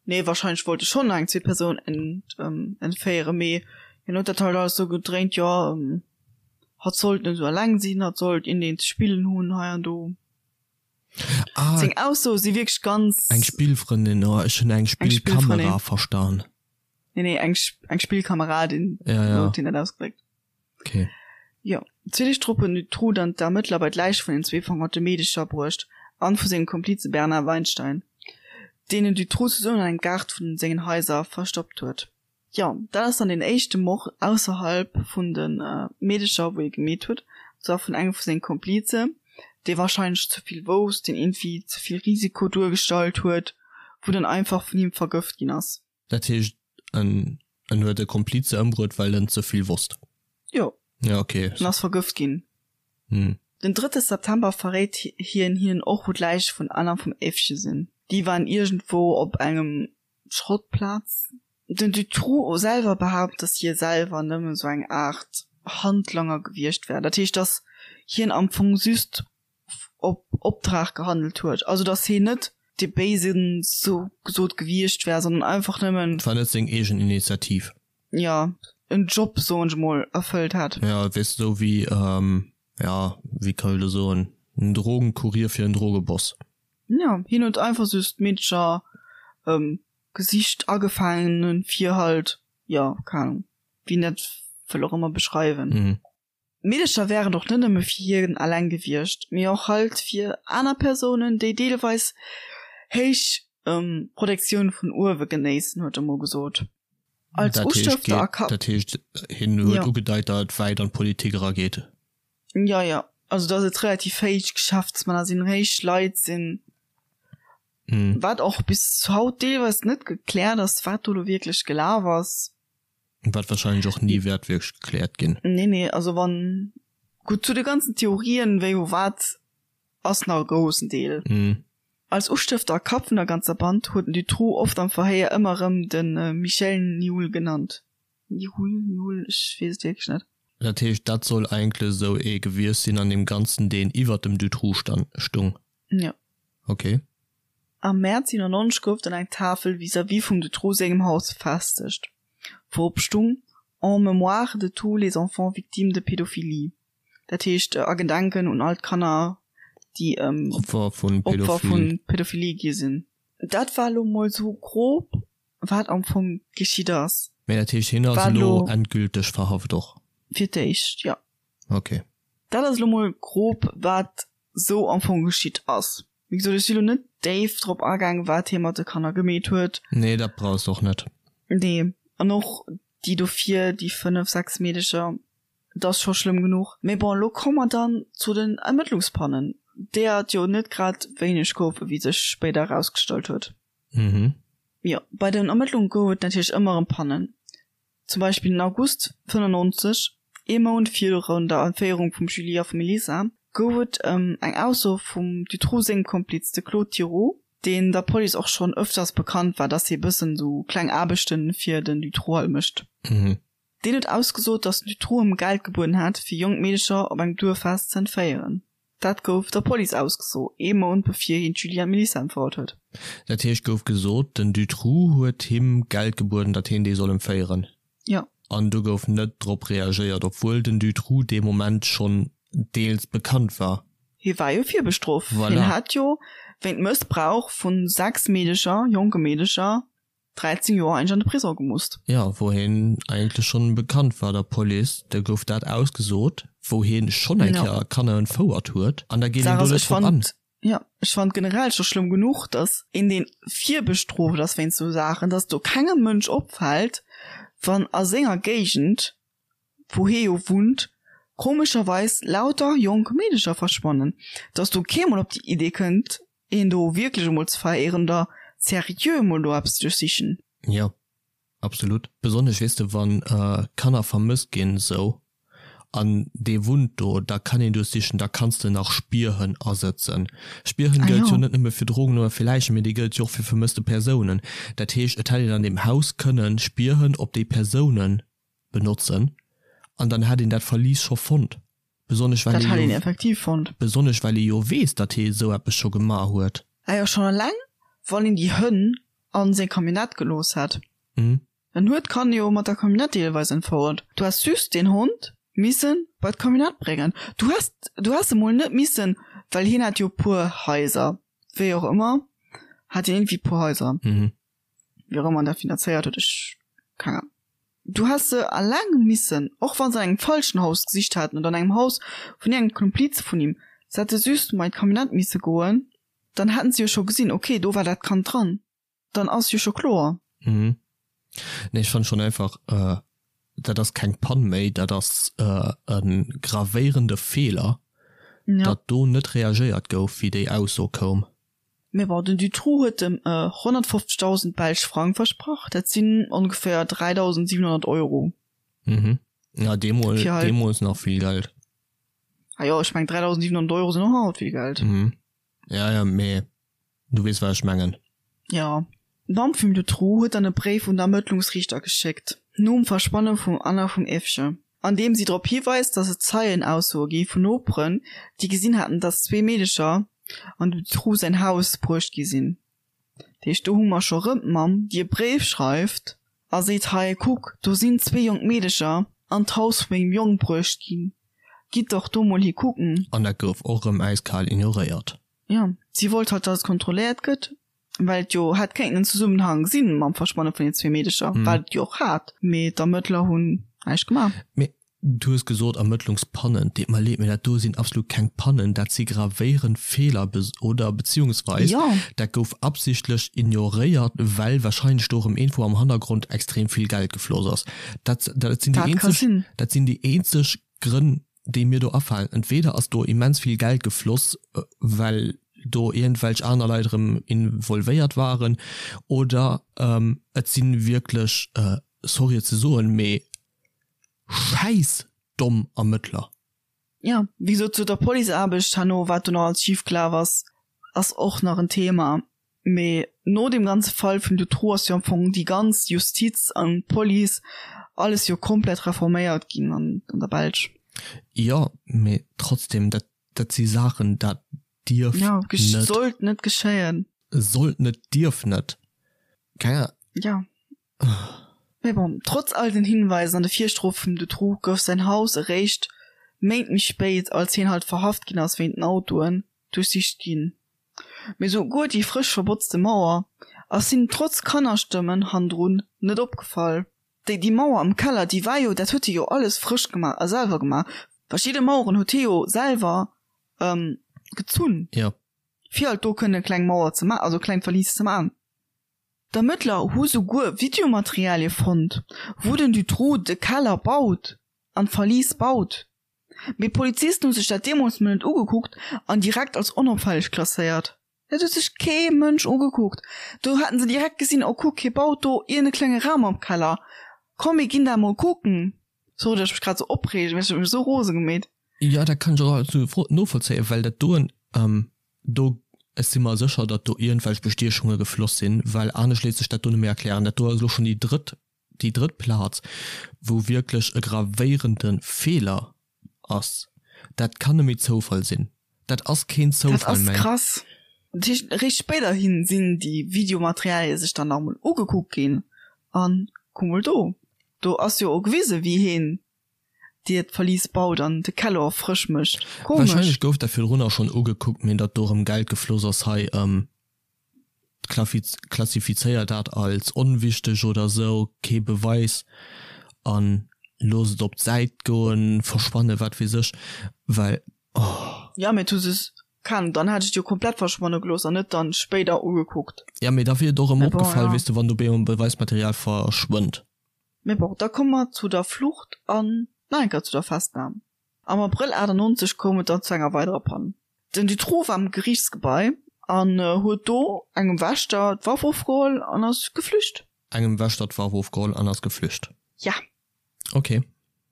Nee, wahrscheinlech wollt e schonn eng zweet Persoun entféieren, mee hien huet dat halt alles sou gedréint, jo, hatt sollt net esou eleng sinn, hatt sollt iergendeen ze spillen hunn hei an do. Ah, Seng Aussoe si wierklech ganz. Eng Spillfrëndin, oh, ech hunn eng Spillkamera verstan. Nee, nee, eng, eng Spillkameradin, ja, ja. sou huet hien dat ausgedréckt. Okay. Jo, zwee Deeg drop huet den Dutroux dann d'Ermëttler bei d'Läich vun den zwee verhongerte Meedecher bruecht an vu sengem Komplize Bernard Weinstein, deen den Dutroux zesummen an engem Gaart vun sengen Haiser verstoppt huet. Jo, dat ass dann deen éischte Mord ausserhalb vun de Meedecher, wou hie gemeet huet, an zwar vun engem vu senge Komplize, dee warscheinlech ze vill wousst, deen iergendwéi ze vill Risiko duergestallt huet, wou dann einfach vun him vergëft ginn ass. Dat heescht, en en huet e Komplize ëmbruet, well en ze vill wosst? Jo. Ja, okay. En ass vergëft ginn. Hm. Den drëtte September verréit hien hinnen och, wou d'Läiche vun Anna vum Evche sinn. Déi waren iergendwou op engem Schrottplaz. Den Dutroux selwer behaapt, datt hie selwer nëmmen esou eng Aart Handlanger gewiescht wär. Dat heescht, datt hien am Fong just op Optrag gehandelt huet. Also datt hien net dee Béisen sou gesot gewiescht wär, sondern einfach nëmmen. Et war net seng eegen Initiativ. Jo, en Job, soen ech mol, erfëllt hätt. Jo, weess de, esou wéi, jo, wéi kann ech elo soen, en Drogenkurier fir en Drogeboss. Jo, hien huet einfach just d'Meedercher gesicht, agefaangen, fir halt, jo, keng Ahnung, wéi een dat wëll och ëmmer beschreiwen. D'Meedercher wären och net nëmme fir hien eleng gewiescht, mee och halt fir aner Persounen, déi deelweis héich Protektioun vun uewe genéissen, huet e mol gesot. Als Ustëfter a Kap. Dat heescht, hien huet ugedeit, datt et wäit an d'Politik erageet. Jo, jo, also datt et relativ héich Geschäftsmänner sinn, héich Leit sinn, wat och bis haut deelweis net gekläert ass, wat do elo wierklech gelaf ass. Wat wahrscheinlech och ni wäert wierklech gekläert ginn. Nee, nee, also wann, gutt, zu de ganzen Theorien, wéi, wou, wat, ass nach e groussen Deel. Als Ustëfter a Kapp vun der ganzer Band huet den Dutroux oft am Verhéier ëmmer erëm de Michel Nihoul genannt. Nihoul, Nihoul, ech weess et wierklech net. Dat heescht, dat soll eigentlech esou ee gewiescht sinn an deem Ganzen, deen iwwert dem Dutroux stung? Jo. Ok. Am Mäerz 97 gouf dann eng Tafel vis-à-vis vum Dutroux sengem Haus befestegt, wou op stung, En mémoire de tous les enfants victimes de pédophilie. Dat heescht a Gedenken un all d'Kanner, déi Opfer vu Pädophilie gi sinn. Dat war elo mol sou grob, wat am Fong geschitt ass. Mä dat heescht, hien ass elo endgülteg verhaft och? Fir d'éischt, jo. Ok. Dat ass elo mol grob, wat sou am Fong geschitt ass. Wéi gesot, ech si lo net déif drop agaang, wat hie mat de Kanner gemeet huet. Nee, dat brauchs de och net. Nee, an och déi dofir, déi 5, 6 Meedecher, et ass scho schlëmm genuch. Mee bon, elo komme mer dann zu den Ermëttlungspannen, deeër et jo net grad wéineg goufen, wéi sech spéider erausgestallt huet. Mhm. Jo, bei den Ermëttlunge gouf et natierlech ëmmer erëm Pannen. Zum Beispill den August 95, ee Mount virun der Entféierung vum Julie a vum Elisa, gouf et eng Ausso vum Dutroux sengem Kompliz, de Claude Thiroux, deen der Police och schonn ëfters bekannt war, dass hie bëssen esou kleng Aarbechte fir den Dutroux halt mécht. Deen huet ausgesot, dass den Dutroux ëm Geld gebueden hätt, fir jonk Meedecher op engem Duerffest ze entféieren. Dat gouf der Police ausgeso, ee Mount bevir hien d'Julie an d'Melissa entfouert huet. Dat heescht, gouf gesot, den Dutroux huet him Geld gebueden, datt hien déi soll entféieren. Jo. An do gouf net drop reagéiert, obwuel den Dutroux dee Moment schonn deels bekannt war. Hie war jo virbestrooft. Voilà. Hien hat jo wéint Mëssbrauch vu 6 Meedecher, jonke Meedecher, 13 Joer eigentlech an de Prisong gemusst. Jo, wou hien eigentlech schonn bekannt war der Police, da gouf dat ausgesot, wou hien schonn eng Kéier Kanner entfouert huet, an da geet een do net drop an. Jo, ech fand generell scho schlëmm genuch, datt een deen virbestrooft ass wéinst sou Saachen, datt do kengem Mënsch opfält, wann a senger Géigend, wou hie jo wunnt, komescherweis lauter jonk Meedecher verschwannen, datt do kee mol op déi Idee kënnt, een do wierklech emol ze veréieren oder seriö emol do eppes ze duerchsichen. Jo, absolut. Besonnesch, weess de, wann Kanner vermësst ginn esou, an dee wunnt do, da kann een duerchsichen, da kanns de nach Spierhënn asëtzen. Spierhënn gëllt jo net nëmme fir Drogen oder fir Läichen, mee déi gëllt jo och fir vermësste Persounen. Dat heescht, et hätt een an deem Haus kënnen Spierhënn op déi Persounen benotzen an dann hätt een dat Verlies scho fonnt. Besonnesch well Dat hätt een effektiv fonnt. Besonnesch well ee jo weess, datt hee esou eppes scho gemaach huet. Ah jo, schonn eleng wann een déi Hënn a seng Camionnette gelooss hätt. En huet d'Kanner jo mat der Camionnette deelweis entfouert. Du häss just deen Hond misse bei d'Camionnette bréngen. Du häss, du häss emol net missen, well hien hat jo e puer Haiser, wéi och ëmmer hat hien iergendwéi e puer Haiser, wéi och ëmmer en dat finanzéiert huet, ech, keng Ahnung. Du häss se alleng missen, och wann se an engem falschen Haus gesicht haten oder an engem Haus vun iergendengem Komplize vun him, se hätte just mei d'Camionnette misse goen, dann hätten se jo scho gesinn, ok, do war dat Kand dran, dann ass jo scho kloer. Mhm. Nee, ech fannen schon einfach, dat ass keng Pann méi, dat ass e gravéierende Feeler, datt do net reagéiert gouf, wéi déi Ausso koum. Mee bon, den Dutroux huet em 150.000 belsch Frang versprach, dat sinn ongeféier 3.700 Euro. Mhm. Ja, deemol, Fir halt- deemools nach vill Geld. Ah jo, ech meng 3.700 Euro sinn och haut vill Geld. Mhm. Ja, ja, mee. Du weess wat ech mengen. Jo. D'Mamm vum Dutroux huet dann e Bréif un d'Ermëttlungsriichter geschéckt, nom Verschwanne vum Anna vum Evje, an deem si drop hiweist, datt et Zeienaussoe gi vun Noperen, déi gesinn haten, datt zwee Meedecher an dem Dutroux säin Haus bruecht gi sinn. Dat heescht, do hu mer scho rëm d'Mamm, déi e Bréif schreift a seet, Hei, kuck, do sinn zwee jonk Meedecher an d'Haus vu mengem Jong bruecht ginn, gitt dach do mol hi kucken. An dat gouf och rëm äiskal ignoréiert. Jo, si wollt halt, datt et kontrolléiert gëtt, well et jo hätt kéinten en Zesummenhang si mam Verschwanne vun den zwee Meedecher, wat et jo och hat, mee d'Ermëttler hunn näischt gemaach. Mee du hues gesot Ermëttlungspannen. Deet mer leed, mee dat do sinn absolut keng Pannen, dat si gravéierend Feeler oder beziehungsweis dat gouf absichtlech ignoréiert, well wahrscheinlech do erëm iergendwou am Hannergrond extrem vill Geld gefloss ass. Dat, dat sinn déi eenzeg, dat sinn déi eenzeg Grënn, déi mir do afalen. Entweder ass do immens vill Geld gefloss, well do iergendwelch aner Leit erëm involvéiert waren, oder et si wierklech, sorry et ze soen, mee schäissdomm Ermëttler. Jo, wéi gesot, zu der Policeaarbecht herno, wat do nach alles schifgelaf ass, ass och nach en Thema. Mee no deem ganze Fall vum Dutroux ass jo am Fong déi ganz Justiz an d'Police, alles jo komplett reforméiert ginn an der Belsch. Jo, mee trotzdem, dat, dat si Saachen, dat dierf net. Jo, sollt net geschéien. Sollt net, dierf net. Keng Ahnung. Jo. Mee bon, trotz all den Hinweisen an de Virstrofe vum Dutroux gouf säin Haus eréischt Méint méi spéit, als hien halt verhaft ginn ass wéint den Autoen, duerchsicht ginn. Mee souguer déi frësch verbotzte Mauer ass hinnen trotz Kannerstëmmen hannendrun net opgefall. Déi déi Mauer am Keller, déi war jo, dat huet hie jo alles frësch gemaach a selwer gemaach. Verschidde Maueren huet hie jo selwer gezunn, fir halt do kënne kleng Mauer ze maachen, also kleng Verlies ze maachen. D'Ermëttler hu souguer Videomaterialie fonnt, wou den Dutroux de Keller baut an d'Verlies baut. Mee d'Polizisten hu sech dat deemools mol net ugekuckt an direkt als onopfälleg klasséiert. Dat huet sech kee Mënsch ugekuckt. Do haten se direkt gesinn, oh kuck, hie baut do iergend e klenge Raum am Keller, komm mir ginn dat mol kucken. Sorry, datt ech mech grad sou opreegen, mee ech huet mech esou rose gemeet. Jo, dat kann ech och absolut novollzéien, well dat doen, do, ech si mer sécher, datt do iergendwelch Bestiechunge gefloss sinn, well anescht léisst sech dat do net méi erklären. Dat do ass elo schonn déi drëtt déi drëtt Plaz, wou wierklech e gravéierende Feeler ass, dat kann net méi Zoufall sinn. Dat ass keen Zoufall méi. Dat ass krass. Dat heescht, eréischt spéiderhi sinn déi Videomaterialie sech dann nach emol ugekuckt ginn an kuck mol do, do ass jo och gewisen, wéi heen dir d'Verlies baut an de Keller frësch mécht. Komesch. Wahrscheinlech gouf dat virdrunner schonn ugekuckt, mee datt do erëm Geld gefloss ass hei. Klassifizéier dat als onwichteg oder sou, kee Beweis an looss et op d'Säit goen, verschwannen, wat weess ech, well oh. Jo, mee du se kann, dann hätt ech et jo komplett verschwanne gelooss an net dann spéider ugekuckt. Jo, mee da wier et och erëm opgefall, weess de, wann do beemol Beweismaterial verschwënnt. Mee bon, da komme mer zu der Flucht an nach eng Kéier zu der Festnam. Am Abrëll 98 koum et dann zu enger weiderer Pann. Den Dutroux war am Geriichtsgebai an huet do engem Wächter d'Waff ofgeholl an ass geflücht. Engem Wächter d'Waff ofgeholl an ass geflücht? Ja. Ok.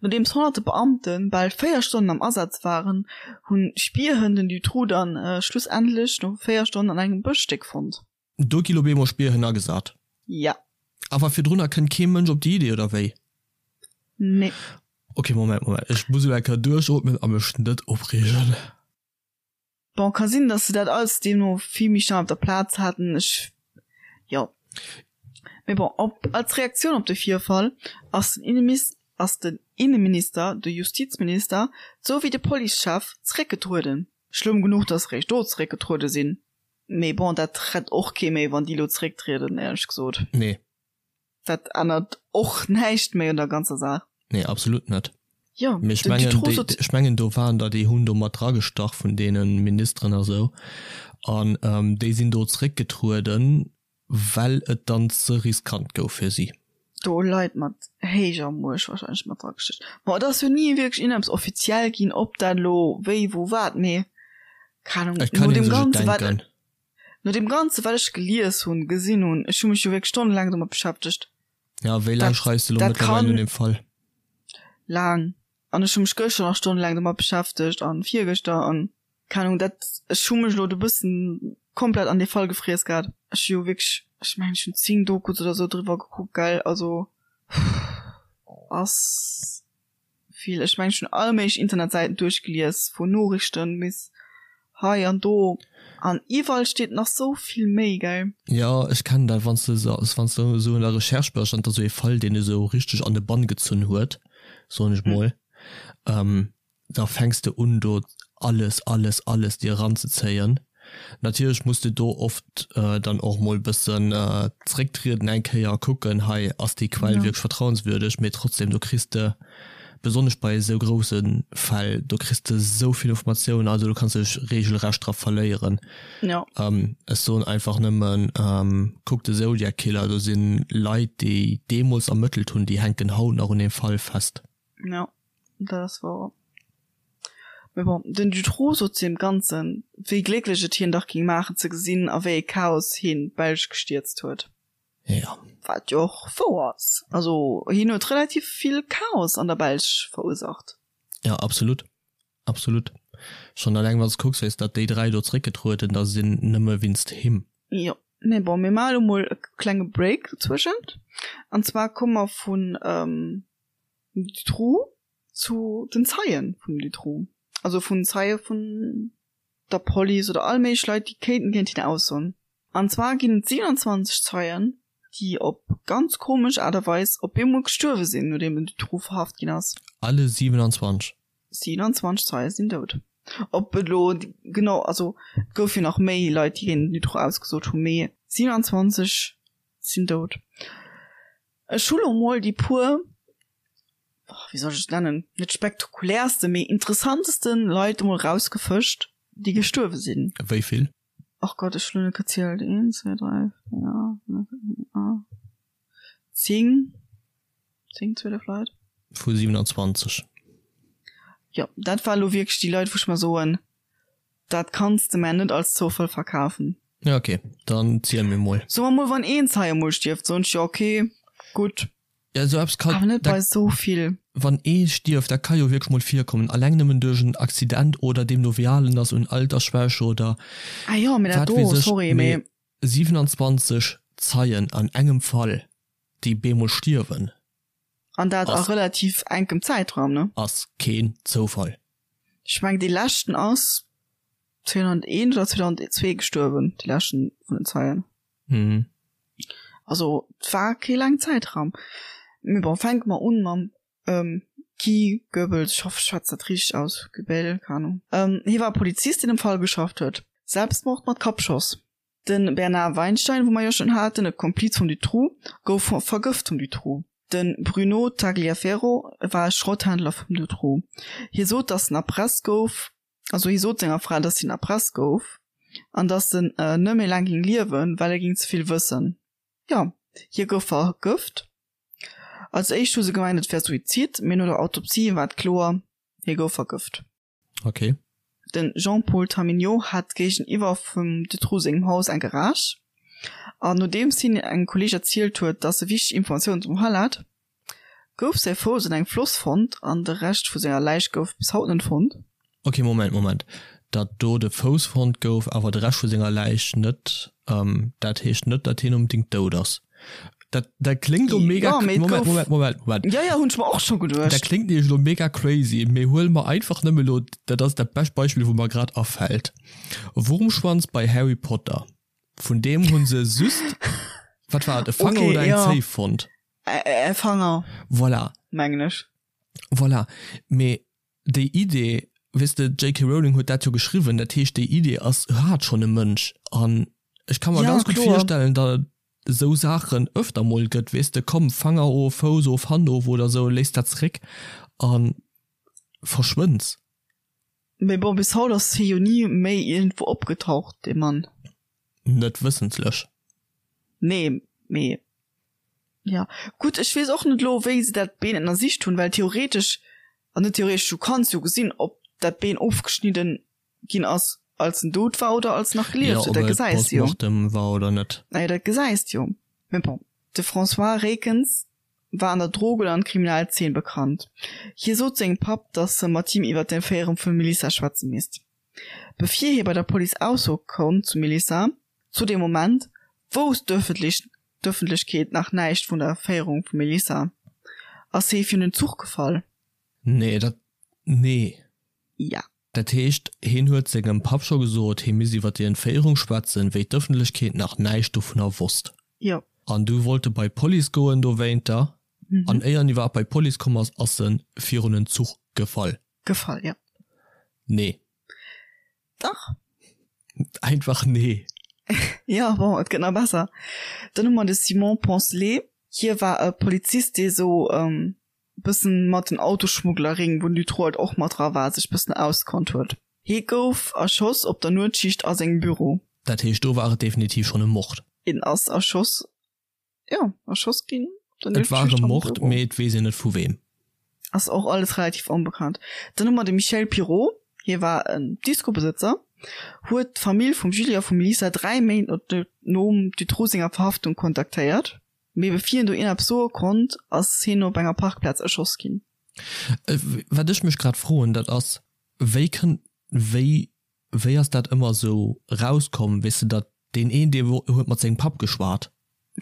Nodeems honnerte Beamte bal 4 Stonnen am Asaz waren, hunn Spierhënn den Dutroux dann schlussendlech no 4 Stonnen an engem Bëschstéck fonnt. Do gi lo bemol Spierhënn agesat. Ja. Awer virdrunner kënnt kee Mënsch op déi Idee, oder wéi? Nee. Ok, Moment, Moment, ech muss elo eng Kéier duerchootmen a mech net opreegen. Bon, ka sinn, dass se dat alles deemno vill méi schnell op der Plaz haten, ech, jo. Mee bon, op, als Reaktioun op de Virfall ass den Innemis, ass den Inneminister, de Justizminister souwéi de Policechef zeréckgetrueden. Schlëmm genuch, dass se réischt do zeréckgetruede sinn. Mee bon, dat rett och kee méi, wann déi elo zerécktrieden, éierlech gesot. Nee. Dat ännert och näischt méi un der ganzer Saach. Nee, absolut net. Jo, Mee ech mengen, déi, ech mengen do waren der, déi hunn do mat dragestach vun deene Ministeren a sou. An déi sinn do zeréckgetrueden, well et dann ze riskant gouf fir si. Do Leit mat héijer Muecht wahrscheinlech mat dragestach. Bon, et ass jo ni wierklech iergendeppes offiziell ginn, ob dat elo wéi, wou, wat, mee keng Ahnung, Et kann no ee deem sech et Ganze wat, denken. no deem Ganze wat ech gelies hunn, gesinn hunn, ech hu mech jo wierklech stonnelaang domat beschäftegt, Ja, wéi laang dat, schreifs de elo dat mëttlerweil kann un deem Fall? laang. An ech hu mech gëschter nach stonnelaang domat beschäftegt an virgëschter an. Keng Ahnung, dat, ech hu mech elo do bëssen komplett an dee Fall gefriess gehat. Ech hu jo wierklech, ech mengen ech hunn 10 Dokus oder sou driwwer gekuckt, gell, also ass vill. Ech mengen ech hunn all méiglech Internetsäiten duerchgelies, vun Noriichten bis hei an do, an iwwerall steet nach sou vill méi, gell. Jo, ech kennen dat, wann s de wann s de esou an der Recherche bass an et ass esou ee Fall, deen esou richteg an de Bann gezunn huet, soen ech mol, da fänks de un do alles, alles, alles dir eranzezéien. Natierlech muss de do oft dann och mol bëssen zrécktrieden eng Kéier a kucken, hei ass déi Quell wierklech vertrauenswürdeg, mee trotzdem do kriss de besonnesch bei esou grousse Fäll, do kriss de esou vill Informatiounen, also do kanns de dech regelrecht dra verléieren. Ech soen einfach nëmmen, kuck de Zodiac Killer, do si Leit déi deemools ermëttelt hunn, déi hänken haut nach un deem Fall fest. Jo, dat ass wouer. Mee bon, den Dutroux sot zu deem Ganzen, wéi glécklech et hien dach géing maachen ze gesinn, a wéi e Chaos hien d'Belsch gestierzt huet. Jo. Wat jo och wouer ass. Also hien huet relativ vill Chaos an der Belsch verursacht. Jo, absolut. Absolut. Schonn alleng wann s de kucks, wéi s datt déi 3 do zeréckgetrueden da sinn, nëmme winst him. Jo, mee bon, mir maache lo mol e klenge Break dozwëschent. An zwar komme mer vun Dutroux zu den Zeien vum Dutroux, also vun Zeie vun der Police oder all méiglech Leit, déi kéinten géint hien aussoen. An zwar ginn et 27 Zeien, déi op ganz komesch Aart a Weis op eemol gestuerwe sinn, nodeem den Dutroux verhaft ginn ass. Alle 27? 27 Zeie sinn dout. Ob et elo genau, also et gouf jo nach méi Leit, déi géint den Dutroux ausgesot hunn, mee 27 sinn dout. Ech hu lo mol déi puer, wéi soll ech et nennen, net spektakuläerste, mee interessanteste Leit emol rausgefëscht, déi gestuerwe sinn. Wéi vill? Ach Gott, ech hu lo net gezielt. Een, zwee, dräi, véier, fënnef, aacht, zéng, zéng, 12 Leit. Vu 27. Jo, dat war lo wierklech déi Leit, wou ech mer soen, Dat kanns de mär net als Zoufall verkafen. Ja ok, dann ziel mir mol. Soe mer mol, wann een Zeie mol stierft, soen ech jo ok, gutt. Ja esou eppes kann. Awer net bei esou vill. Wann ee stierft, dat ka jo wierklech mol virkommen, alleng nëmmen duerch en Accident oder deemno wéi al en ass, un Altersschwäche oder Ah jo, mee dat wat do, weess ech. sorry, Mee mee. 27 Zeien an engem Fall, déi bemol stierwen. An dat a relativ enkem Zäitraum, ne? Ass keen Zoufall. Ech mengen dee leschten ass 2001 oder 2002 gestuerwen, dee leschten vun den Zeien. Mhm. Also et war kee laangen Zäitraum. Mee bon, fänke mer un mam Guy Goebbels, ech hoffe ech schwätz dat richteg aus, Goebel, keng Ahnung. Hie war e Polizist, deen am Fall geschafft huet. Selbstmord mat Kappschoss. De Bernard Weinstein, wou mer jo schonn haten, e Kompliz vum Dutroux, gouf vergëft vum Dutroux. De Bruno Tagliaferro war e Schrotthändler vum Dutroux. Hie sot, datt en erpresst gouf, also hie sot senger Fra, datt hien erpresst gouf an datt en net méi laang géing liewen, well e géing ze vill wëssen. Jo, hie gouf vergëft. Als éischt hu se gemengt, et wär Suizid, mee no der Autopsie war et kloer, hie gouf vergëft. Ok. De Jean-Paul Taminiaux hat géigeniwwer vum Dutroux sengem Haus eng Garage, an nodeems hien engem Kolleeg erzielt huet, datt e wichteg Informatiounen zum Fall hat, gouf säi Fouss an engem Floss fonnt an de Rescht vu senger Läich gouf bis haut net fonnt. Ok, Moment, Moment. Datt do de Fouss fonnt gouf, awer de Rescht vu senger Läich net, dat heescht net, datt hien onbedéngt dout ass. Dat, dat kléngt lo mega, Ja, mee et Moment, gouf, Moment, Moment, Moment. ja, ja, hunn ech mer och scho Dat geduecht. kléngt nämlech lo mega crazy, mee huele mer einfach nëmme lo, dat ass dat bescht Beispill, wou mer grad afält, Wurmschwanz bei Harry Potter. Vun deem hu se just, wat war et, e Fanger Okay, oder eng ja. Zéif fonnt. Ä, e Fanger, Voilà, mengen ech. voilà. Mee déi Idee, weess de, d'JK Rowling huet dat jo geschriwwen, dat heescht, déi Idee ass, hat schonn e Mënsch. An ech ka mer Ja, ganz gutt kloer. virstellen, datt et esou Saachen öfter mol gëtt, weess de, komm, Fanger of, Fouss of, Hand of oder esou, léiss dat zeréck a verschwënns. Mee bon, bis haut ass hie jo ni méi iergendwou opgetaucht, dee Mann. Net wëssentlech. Nee, mee jo. Gutt, ech weess och net elo, wéi se dat Been ënnersicht hunn, well theoretesch, an net theoretesch, du kanns jo gesinn, ob dat Been ofgeschnidden ginn ass, als en dout war oder als en nach Jo, gelieft huet. ob Dat et gesäis de jo. post-mortem war oder net. Naja, dat gesäis de jo. Mee bon. De François Reekens war an der Drogen an Kriminalzeen bekannt. Hie sot sengem Papp, datt e mat him iwwer d'Entféierung vum Melissa schwätze misst. Bevir hie bei der Police aussoe konnt zu Melissa, zu deem Moment wousst d'Ëffentlechkeet nach näischt vun der Entféierung vum Melissa, ass hie virun den Zuch gefall. Nee, dat, nee. Ja. Dat heescht, hien huet sengem Papp scho gesot, hie misst iwwer déi Entféierung schwätzen, wéi d'Ëffentlechkeet nach näischt dovunner wosst. Jo. An du wollt e bei d'Police goen dowéinter, an éier en iwwerhaapt bei d'Police komm ass, ass en virun en Zuch gefall. Gefall, jo. Nee. Dach. Einfach nee. Jo, bon, et gëtt nach besser. Dann hu mer de Simon Poncelet. Hie war e Polizist, dee sou bëssen mat den Autoschmugglerring, wou den Dutroux halt och mat dra war, sech bëssen auskonnt huet. Hie gouf erschoss op der Nuetsschicht a sengem Büro. Dat heescht, do war et definitiv schonn e Mord. Hien ass erschoss, jo, erschoss ginn op der Nuetsschicht am Büro. Et war e Mord, mee et weess een net vu weem. Ass och alles relativ onbekannt. Dann hu mer de Michel Pirot, hie war en Discobesëtzer, huet d'Famill vum Julie a vum Lisa 3 Méint nom Dutroux senger Verhaftung kontaktéiert. Mee bevir hien do ierneppes soe konnt, ass hien op enger Parkplaz erschoss ginn. Wat ech mech grad froen, dat ass, wéi kënnt, wéi, wéi ass dat ëmmer esou rauskomm, weess de, datt deen een, dee huet mat sengem Papp geschwat.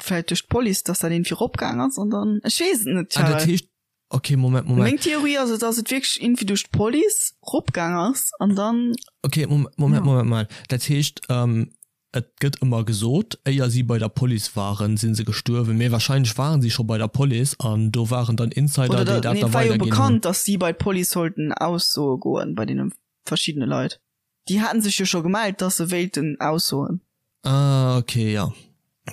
Vläit duerch d'Police, datt dat een virop gaang ass an dann, ech weess et net, Ah, dat heescht, okay, Moment, Moment. Meng Theorie ass et, datt et wierklech iergendwéi duerch d'Police ropgaang ass an dann. Okay, Moment, Moment, Moment, Moment. Dat heescht, Et gëtt ëmmer gesot, éier si bei der Police waren, si se gestuerwen, mee wahrscheinlech waren si scho bei der Police an do waren dann Insider, déi dat da weiderginn hunn. Et war jo bekannt, datt si bei d'Police sollten aussoe goen, bei deene verschiddene Leit. Déi haten sech jo scho gemellt, datt se wéilten aussoen. Ah, ok, jo.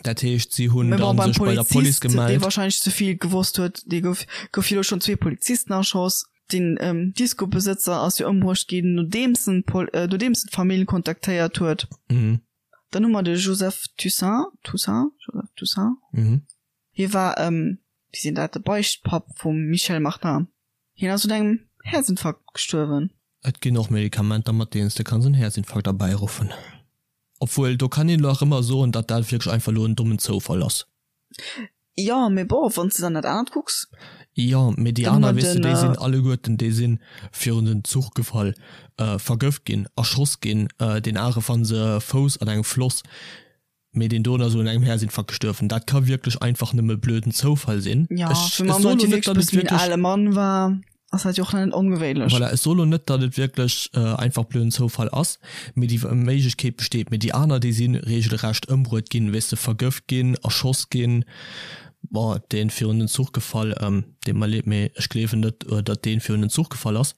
Dat heescht, si hunn dann sech bei der Police gemellt. Dee wahrscheinlech ze vill gewosst huet, dee gouf, gouf jo elo schonn zwee Polizisten erschoss. Den Discobesëtzer ass jo ëmbruecht ginn, nodeems en nodeems en d'Famill kontaktéiert huet. Mhm. Dann hu mer de Joseph Toussaint, Toussaint, Joseph Toussaint. Mhm. Hie war, wéi seet een dat, de Beichtpapp vum Michel Martin. Hien ass un engem Häerzinfarkt gestuerwen. Et ginn och Medikamenter, mat deenen s de kanns en Häerzinfarkt erbäiruffen. Obwuel, do kann een elo nach ëmmer soen, datt dat wierklech einfach elo en dommen Zoufall ass. Jo, mee bon, wann s de dann dat anert kucks. Jo, mee déi aner, weess de, déi sinn alleguerten, déi si virun den Zuch gefall, vergëft ginn, erschoss ginn, deen anere fanne se Fouss an engem Floss, mee deen doen ass un engem Häerzinfarkt gestuerwen. Dat ka wierklech einfach nëmme blöden Zoufall sinn. Jo, fir mann, datt hie wierklech e bësse méi en ale Mann war. Ass dat jo och net ongewéinlech. Voilà, ech soe lo net, datt et wierklech einfach blöden Zoufall ass, mee déi Méiglechkeet besteet. Mee déi aner, déi si regelrecht ëmbruet ginn, weess de, vergëft ginn, erschoss ginn. Bon, dee virun den Zuch gefall, deet mer leed, mee ech gleewen net, datt dee virun den Zuch gefall ass.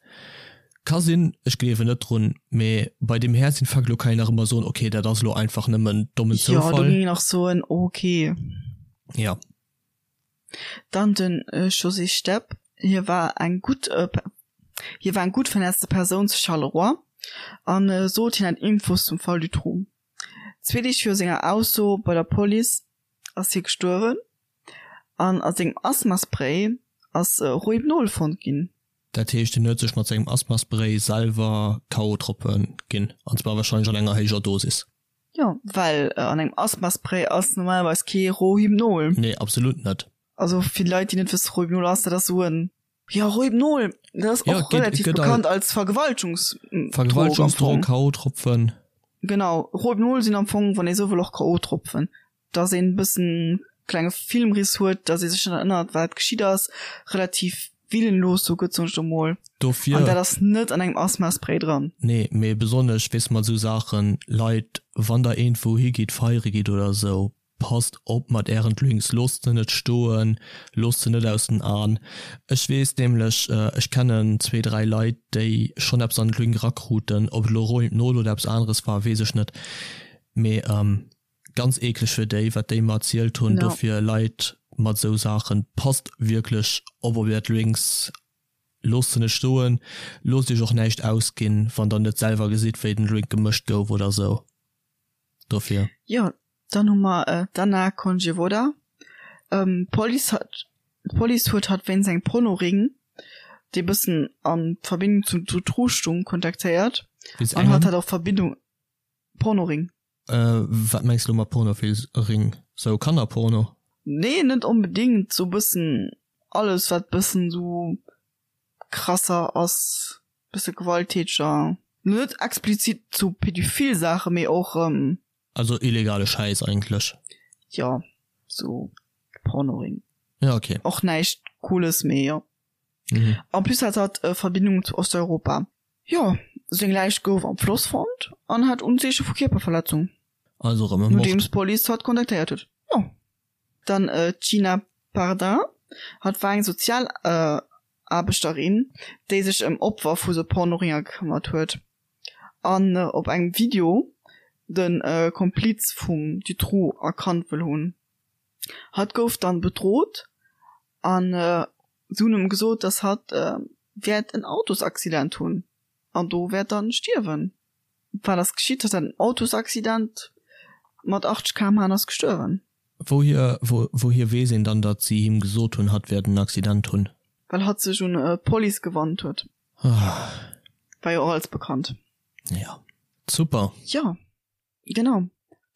Ka sinn, ech gleewen net drun. Mee bei deem Häerzinfarkt elo kann een nach ëmmer soen, okay, dat ass elo einfach nëmmen dommen Zoufall. Jo, do géing een nach soen, okay. Ja. Dann de José Stepp, hie war eng gutt hie war eng gutt vernetzte Persoun zu Charleroi a sot hien hätt Infos zum Fall Dutroux. Zwee Deeg viru senger Ausso bei der Police ass hie gestuerwen an a sengem Asthmaspray ass Rohypnol fonnt ginn. Dat heescht hien huet sech mat sengem Asthmaspray selwer K.O.-Tropfe ginn, an zwar warscheinlech an enger héijer Dosis. Jo, well an engem Asthmaspray ass normalerweis kee Rohypnol. Nee, absolut net. Also fir Leit, déi net wëssen, Rohypnol ass, dat ass esou en, jo, Rohypnol, dat ass och relativ bekannt als Vergewaltungsdrog. Vergewaltungsdrog, K.O.-Tropfen. Genau, Rohypnol sinn am Fong, wann ee sou wëll, och K.O.-Tropfen. Dass een e bëssen klenge Filmriss huet, dass ee sech net erënnert, wat geschitt ass, relativ willenlos sou gëtt, soen ech do mol. Dofir. An dat ass net an engem Asthmaspray dran. Nee, mee besonnesch, weess mat esou Saachen, Leit, wann der iergendwou higitt, feiere gitt oder esou, passt op mat ären Drinks, loosst se net stoen, loosst se net aus den An. Ech weess nämlech, ech kennen zwee, dräi Leit, déi schonn eppes an den Drink erakruten, ob et elo Rohypnol oder eppes aneres war, weess ech net, mee Ganz eekleg fir déi, wat déi mer erzielt hunn. Ja. Dofir Leit mat esou Saachen, passt wierklech op op är Drinks, loosst se net stoen, loosst iech och näischt ausginn, wann der net selwer gesitt wéi den Drink gemëscht gouf oder esou. Dofir. Jo, dann hu mer d'Anna Konjevoda. D'Police hat d'Police huet hatt wéinst engem Pornoring, dee bëssen a Verbindung zum Dutroux stung, kontaktéiert an hatt hat och Verbindung, Pornoring. Wat mengs de lo mat Pornofilsring? Sou Kannerporno? Nee, net onbedingt, sou bëssen alles wat bëssen sou krasser ass, bësse gewalttäteger. Net explizit zu pädophil Saachen, mee och. Also illegale Schäiss eigentlech. Jo, sou Pornoring. Ja, okay. Och näischt Cooles, mee jo. En plus hat hatt Verbindungen zu Osteuropa. Jo, seng Läich gouf am Floss fonnt an hat Unzeeche vu Kierperverletzung. Also erëm e Mord. Nodeems d'Police hatt kontaktéiert huet. Jo. Dann d'Gina Pardin, hatt war eng Sozialaarbechterin, déi sech ëm Opfer vu sou Pornoringer gekëmmert huet an op engem Video de Kompliz vum Dutroux erkannt wëll hunn. Hatt gouf dann bedrot an se hunn em gesot, dass hatt wäert en Autosaccident hunn an do wäert dann stierwen. Wat ass geschitt? Hatt hat en Autosaccident mat 80 km/h an ass gestuerwen. Wouhier wouhier weess een dann, datt si him gesot hunn, hatt wäert en Accident hunn? Well hatt sech un d'Police gewannt huet. War jo och alles bekannt. Jo, super. Jo. Genau.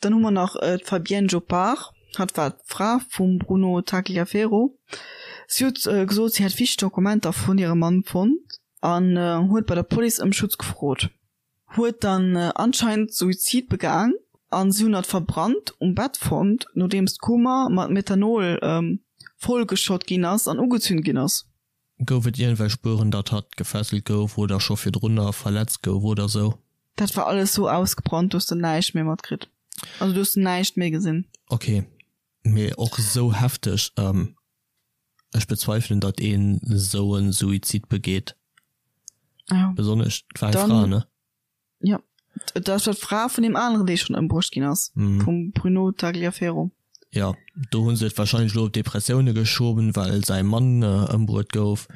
Dann hu mer nach d'Fabienne Jopard. Hatt war d'Fra vum Bruno Tagliaferro. Si huet gesot, si hätt wichteg Dokumenter vun hirem Mann fonnt an huet bei der Police ëm Schutz gefrot. Huet dann anscheinend Suizid begaang an si hunn hatt verbrannt um Bett fonnt, nodeems d'Kummer mat Methanol vollgeschott ginn ass an ugezünt ginn ass. Gouf et iergendwelch Spueren, datt hatt gefesselt gouf oder scho virdrunner verletzt gouf oder sou? Dat war alles sou ausgebrannt, do hues de näischt méi matkritt. Also do hues de näischt méi gesinn. Ok, mee och sou hefteg. Ech bezweifelen, datt een sou e Suizid begeet. Besonnesch, et war eng Fra, ne? Jo, dat war d'Fra vun deem aneren, dee schonn ëmbruecht ginn ass, vum Bruno Tagliaferro. Jo, do hu se et warscheinlech elo op Depressioune geschoben, well säi Mann ëmbruet gouf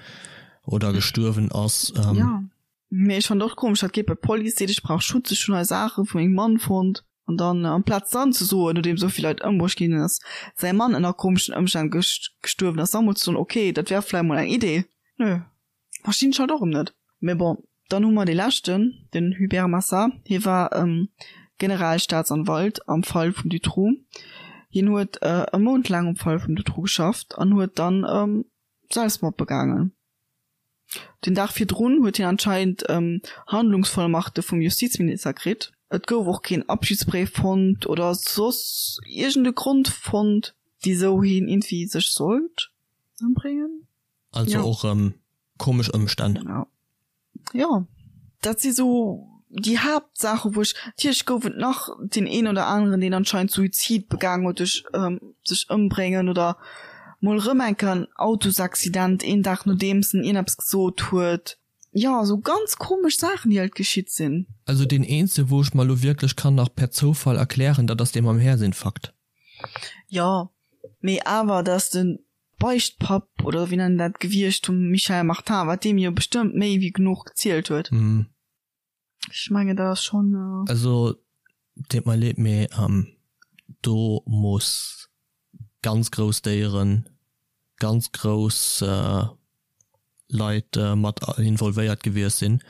oder gestuerwen ass. Jo, mee ech fannen et och komesch, dat geet bei d'Police, seet ech brauch Schutz, ech hunn hei Saache vu mengem Mann fonnt, an dann amplaz dann ze soen, nodeem esou vill Leit ëmbruecht ginn ass, säi Mann ënner komeschen Ëmstänn gestuerwen ass, da mol ze soen, ok, dat wär vläicht mol eng Idee. Nö. Verstinn ech halt och erëm net. Mee bon, dann hu mer dee leschten, den Hubert Massard. Hie war Generalstaatsanwalt am Fall vum Dutroux. Hien huet e Mount laang um Fall vum Dutroux geschafft an huet dann Selbstmord begaangen. Den Dag virdrun huet hien anscheinend Handlungsvollmachte vum Justizminister kritt. Et gouf och keen Abschiedsbréif fonnt oder soss iergend e Grond fonnt, wisou hien iergendwéi sech sollt ëmbréngen. Also ja. och rëm komesch Ëmstänn. Ja. Ja. Dat si sou déi Haaptsaache wou ech, natierlech gouf et nach deen een oder aneren deen anscheinend Suizid begaangen huet duerch sech ëmbréngen oder mol rëm eng Kéier en Autosaccident een Dag nodeems en iergendeppes gesot huet. Jo, sou ganz komesch Saachen déi halt geschitt sinn. Also deen eenzege wou ech mer elo wierklech kann nach per Zoufall erklären, dat ass dee mam Häerzinfarkt. Jo, mee awer dass de Beichtpapp, oder wéi nennen dat gewiescht vum Michel Martin, wat deem jo bestëmmt méi wéi genuch gezielt huet. Ech mengen dat ass schonn. Also deet mer leed, mee do muss ganz grouss Déieren, ganz grouss Leit mat involvéiert gewiescht sinn,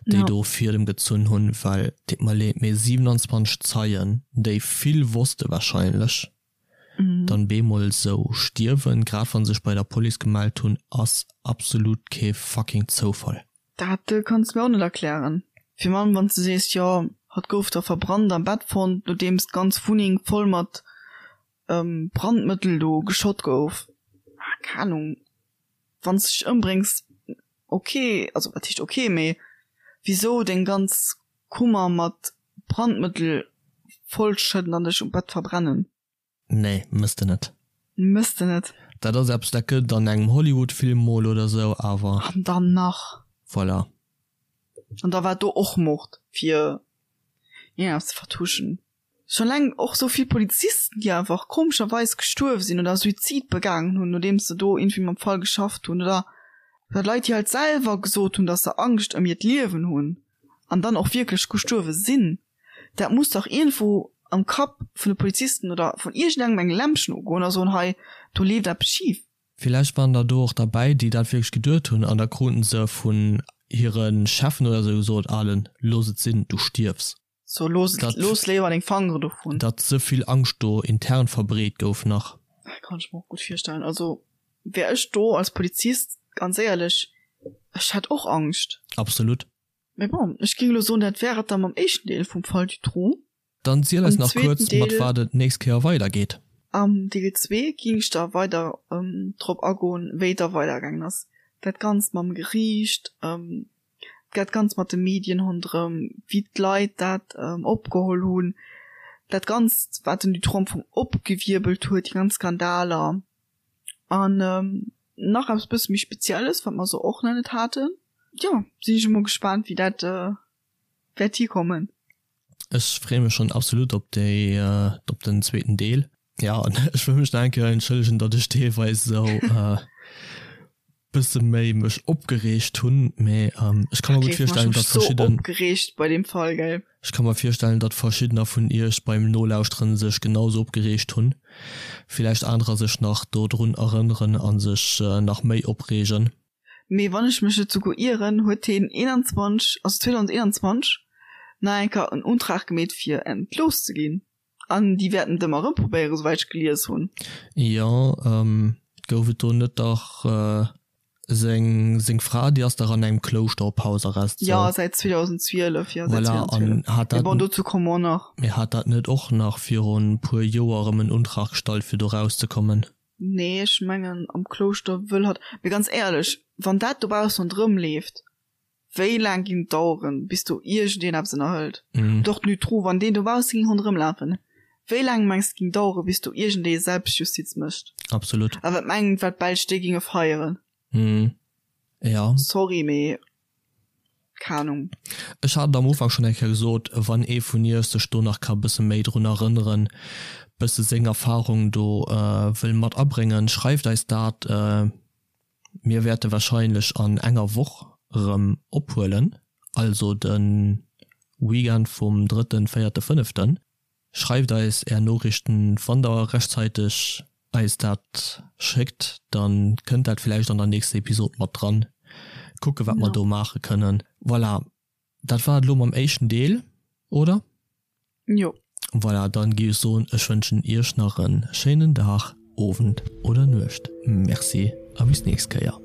déi do Fiedem gezunn hunn, well deet mer leed, mee 27 Zeien, déi vill wosste wahrscheinlech, dann bemol sou stierwen, grad wann se sech bei der Police gemellt hunn, ass absolut kee fucking Zoufall. Dat kanns de mir och net erklären. Virun allem wanns de sees, jo hatt gouf da verbrannt am Bett fonnt, nodeems d'ganz Wunneng voll mat Brandmëttel do geschott gouf. Keng Ahnung, wanns de dech ëmbréngs, ok, also wat heescht ok, mee wisou deng ganz Kummer mat Brandmëttel vollschëdden an dech um Bett verbrennen? Nee, mëss de net. Mëss de net. Dat ass eppes, dat gëtt et an engem Hollywood-Film mol oder sou, awer. An dann nach. Voilà. An da war do och Mord, fir iergendeppes ze vertuschen. Schon eleng och sou vill Polizisten, déi einfach komescherweis gestuerf sinn oder Suizid begaangen hunn, nodeems se do iergendwéi mam Fall geschafft hunn, oder Leit, déi halt selwer gesot hunn, dass se Angscht ëm hiert Liewen hunn an dann och wierklech gestuerwe sinn. Dat muss dach iergendwou am Kapp vun de Polizisten oder vun iergendengem eng Lämpchen ugoen a soen, hei, do leeft eppes schif. Villäicht waren der do och derbäi, déi dat wierklech geduet hunn an da kruten se vun hire Cheffen oder sou gesot, Alen, looss et sinn, du stierfs. So, looss et, looss léiwer deng Fangere dovun. Datt sou vill Angscht do intern verbreet gouf nach. Dat kann ech mer och gutt virstellen. Also wär ech do als Polizist, ganz éierlech, ech hätt och Angscht. Absolut. Mee bon, ech géing elo soen, dat wär et da mam éischten Deel vum Fall Dutroux. Dann ziel eis nach kuerz, mat wat et d'nächst Kéier weidergeet. Am Deel zwee ging ech da weider drop agoen, wéi et da weidergaangen ass. Dat Ganzt mam Geriicht, dat Ganzt mat de Medien ronderëm, wéi d'Leit dat opgeholl hunn, dat Ganzt, wat den Dutroux am Fong opgewierbelt huet, déi ganz Skandaler. An nach eppes bësse méi Spezielles, wat mer esou och nach net haten. Jo, sinn ech emol gespaant, wéi dat wäert hikommen. Ech freeë mech schonn absolut op déi, op den zweeten Deel. Ja, an ech wëll mech nach eng Kéier entschëllegen, datt ech deelweis esou bësse méi mech opgereegt hunn, mee ech ka mer gutt virstellen, datt verschidden. Opgereegt bei deem Fall, gell? Ech ka mer virstellen, datt verschiddener vun iech beim Nolauschteren sech genau esou opgereegt hunn, villäicht anerer sech nach dodrun erënneren a sech nach méi opreegen. Mee wann ech mech net souguer ieren, huet heen 21, also 2021, nach eng Kéier en Untrag gemeet fir entlooss ze ginn. An déi wäerten et ëmmer erëm probéieren, souwäit ech gelies hunn. Jo, gouf et do net dach seng seng Fra, déi ass dach an engem Klouschter op Hausarrest, sou. Jo, säit 2012, jo, säit Voilà, an 2012. hat Mee dat, bon, dozou komme mer och nach. mee hat dat net och nach virun puer Joer erëm en Untrag gestallt fir do rauszekommen? Nee, ech mengen am Klouschter wëll hatt. Mee ganz éierlech, wann dat dobaussen ronderëm leeft, wéi laang ging et daueren, bis do iergendeen eppes ënnerhëlt? Oder och den Dutroux, wann deen dobausse ging ronderëm lafen, wéi laang mengs de ging daueren, bis do iergendee Selbstjustiz mécht? Absolut. A wat mengt, wat d'Belsch déi ginge feieren? Ja. Sorry, mee Keng Ahnung. Ech hat et am Ufank schonn eng Kéier gesot, wann ee vun iech sech do nach ka bësse méi drun erënneren, bësse seng Erfahrung do wëll mat abréngen, schreift eis dat. Mir wäerte wahrscheinlech an enger Woch erëm ophuelen, also de Weekend vum drëtten, véierte, fënneften. Schreift eis är Noriichten, wann der rechtzäiteg eis dat schéckt, dann kënnt dat villäicht an der nächster Episod mat dran. Kucke wat mer do maache kënnen. Voilà, dat war et elo mam éischten Deel, oder? Jo. Voilà, dann géif ech soen, ech wënschen iech nach en schéinen Dag, Owend oder Nuecht. Merci a bis nächst Kéier.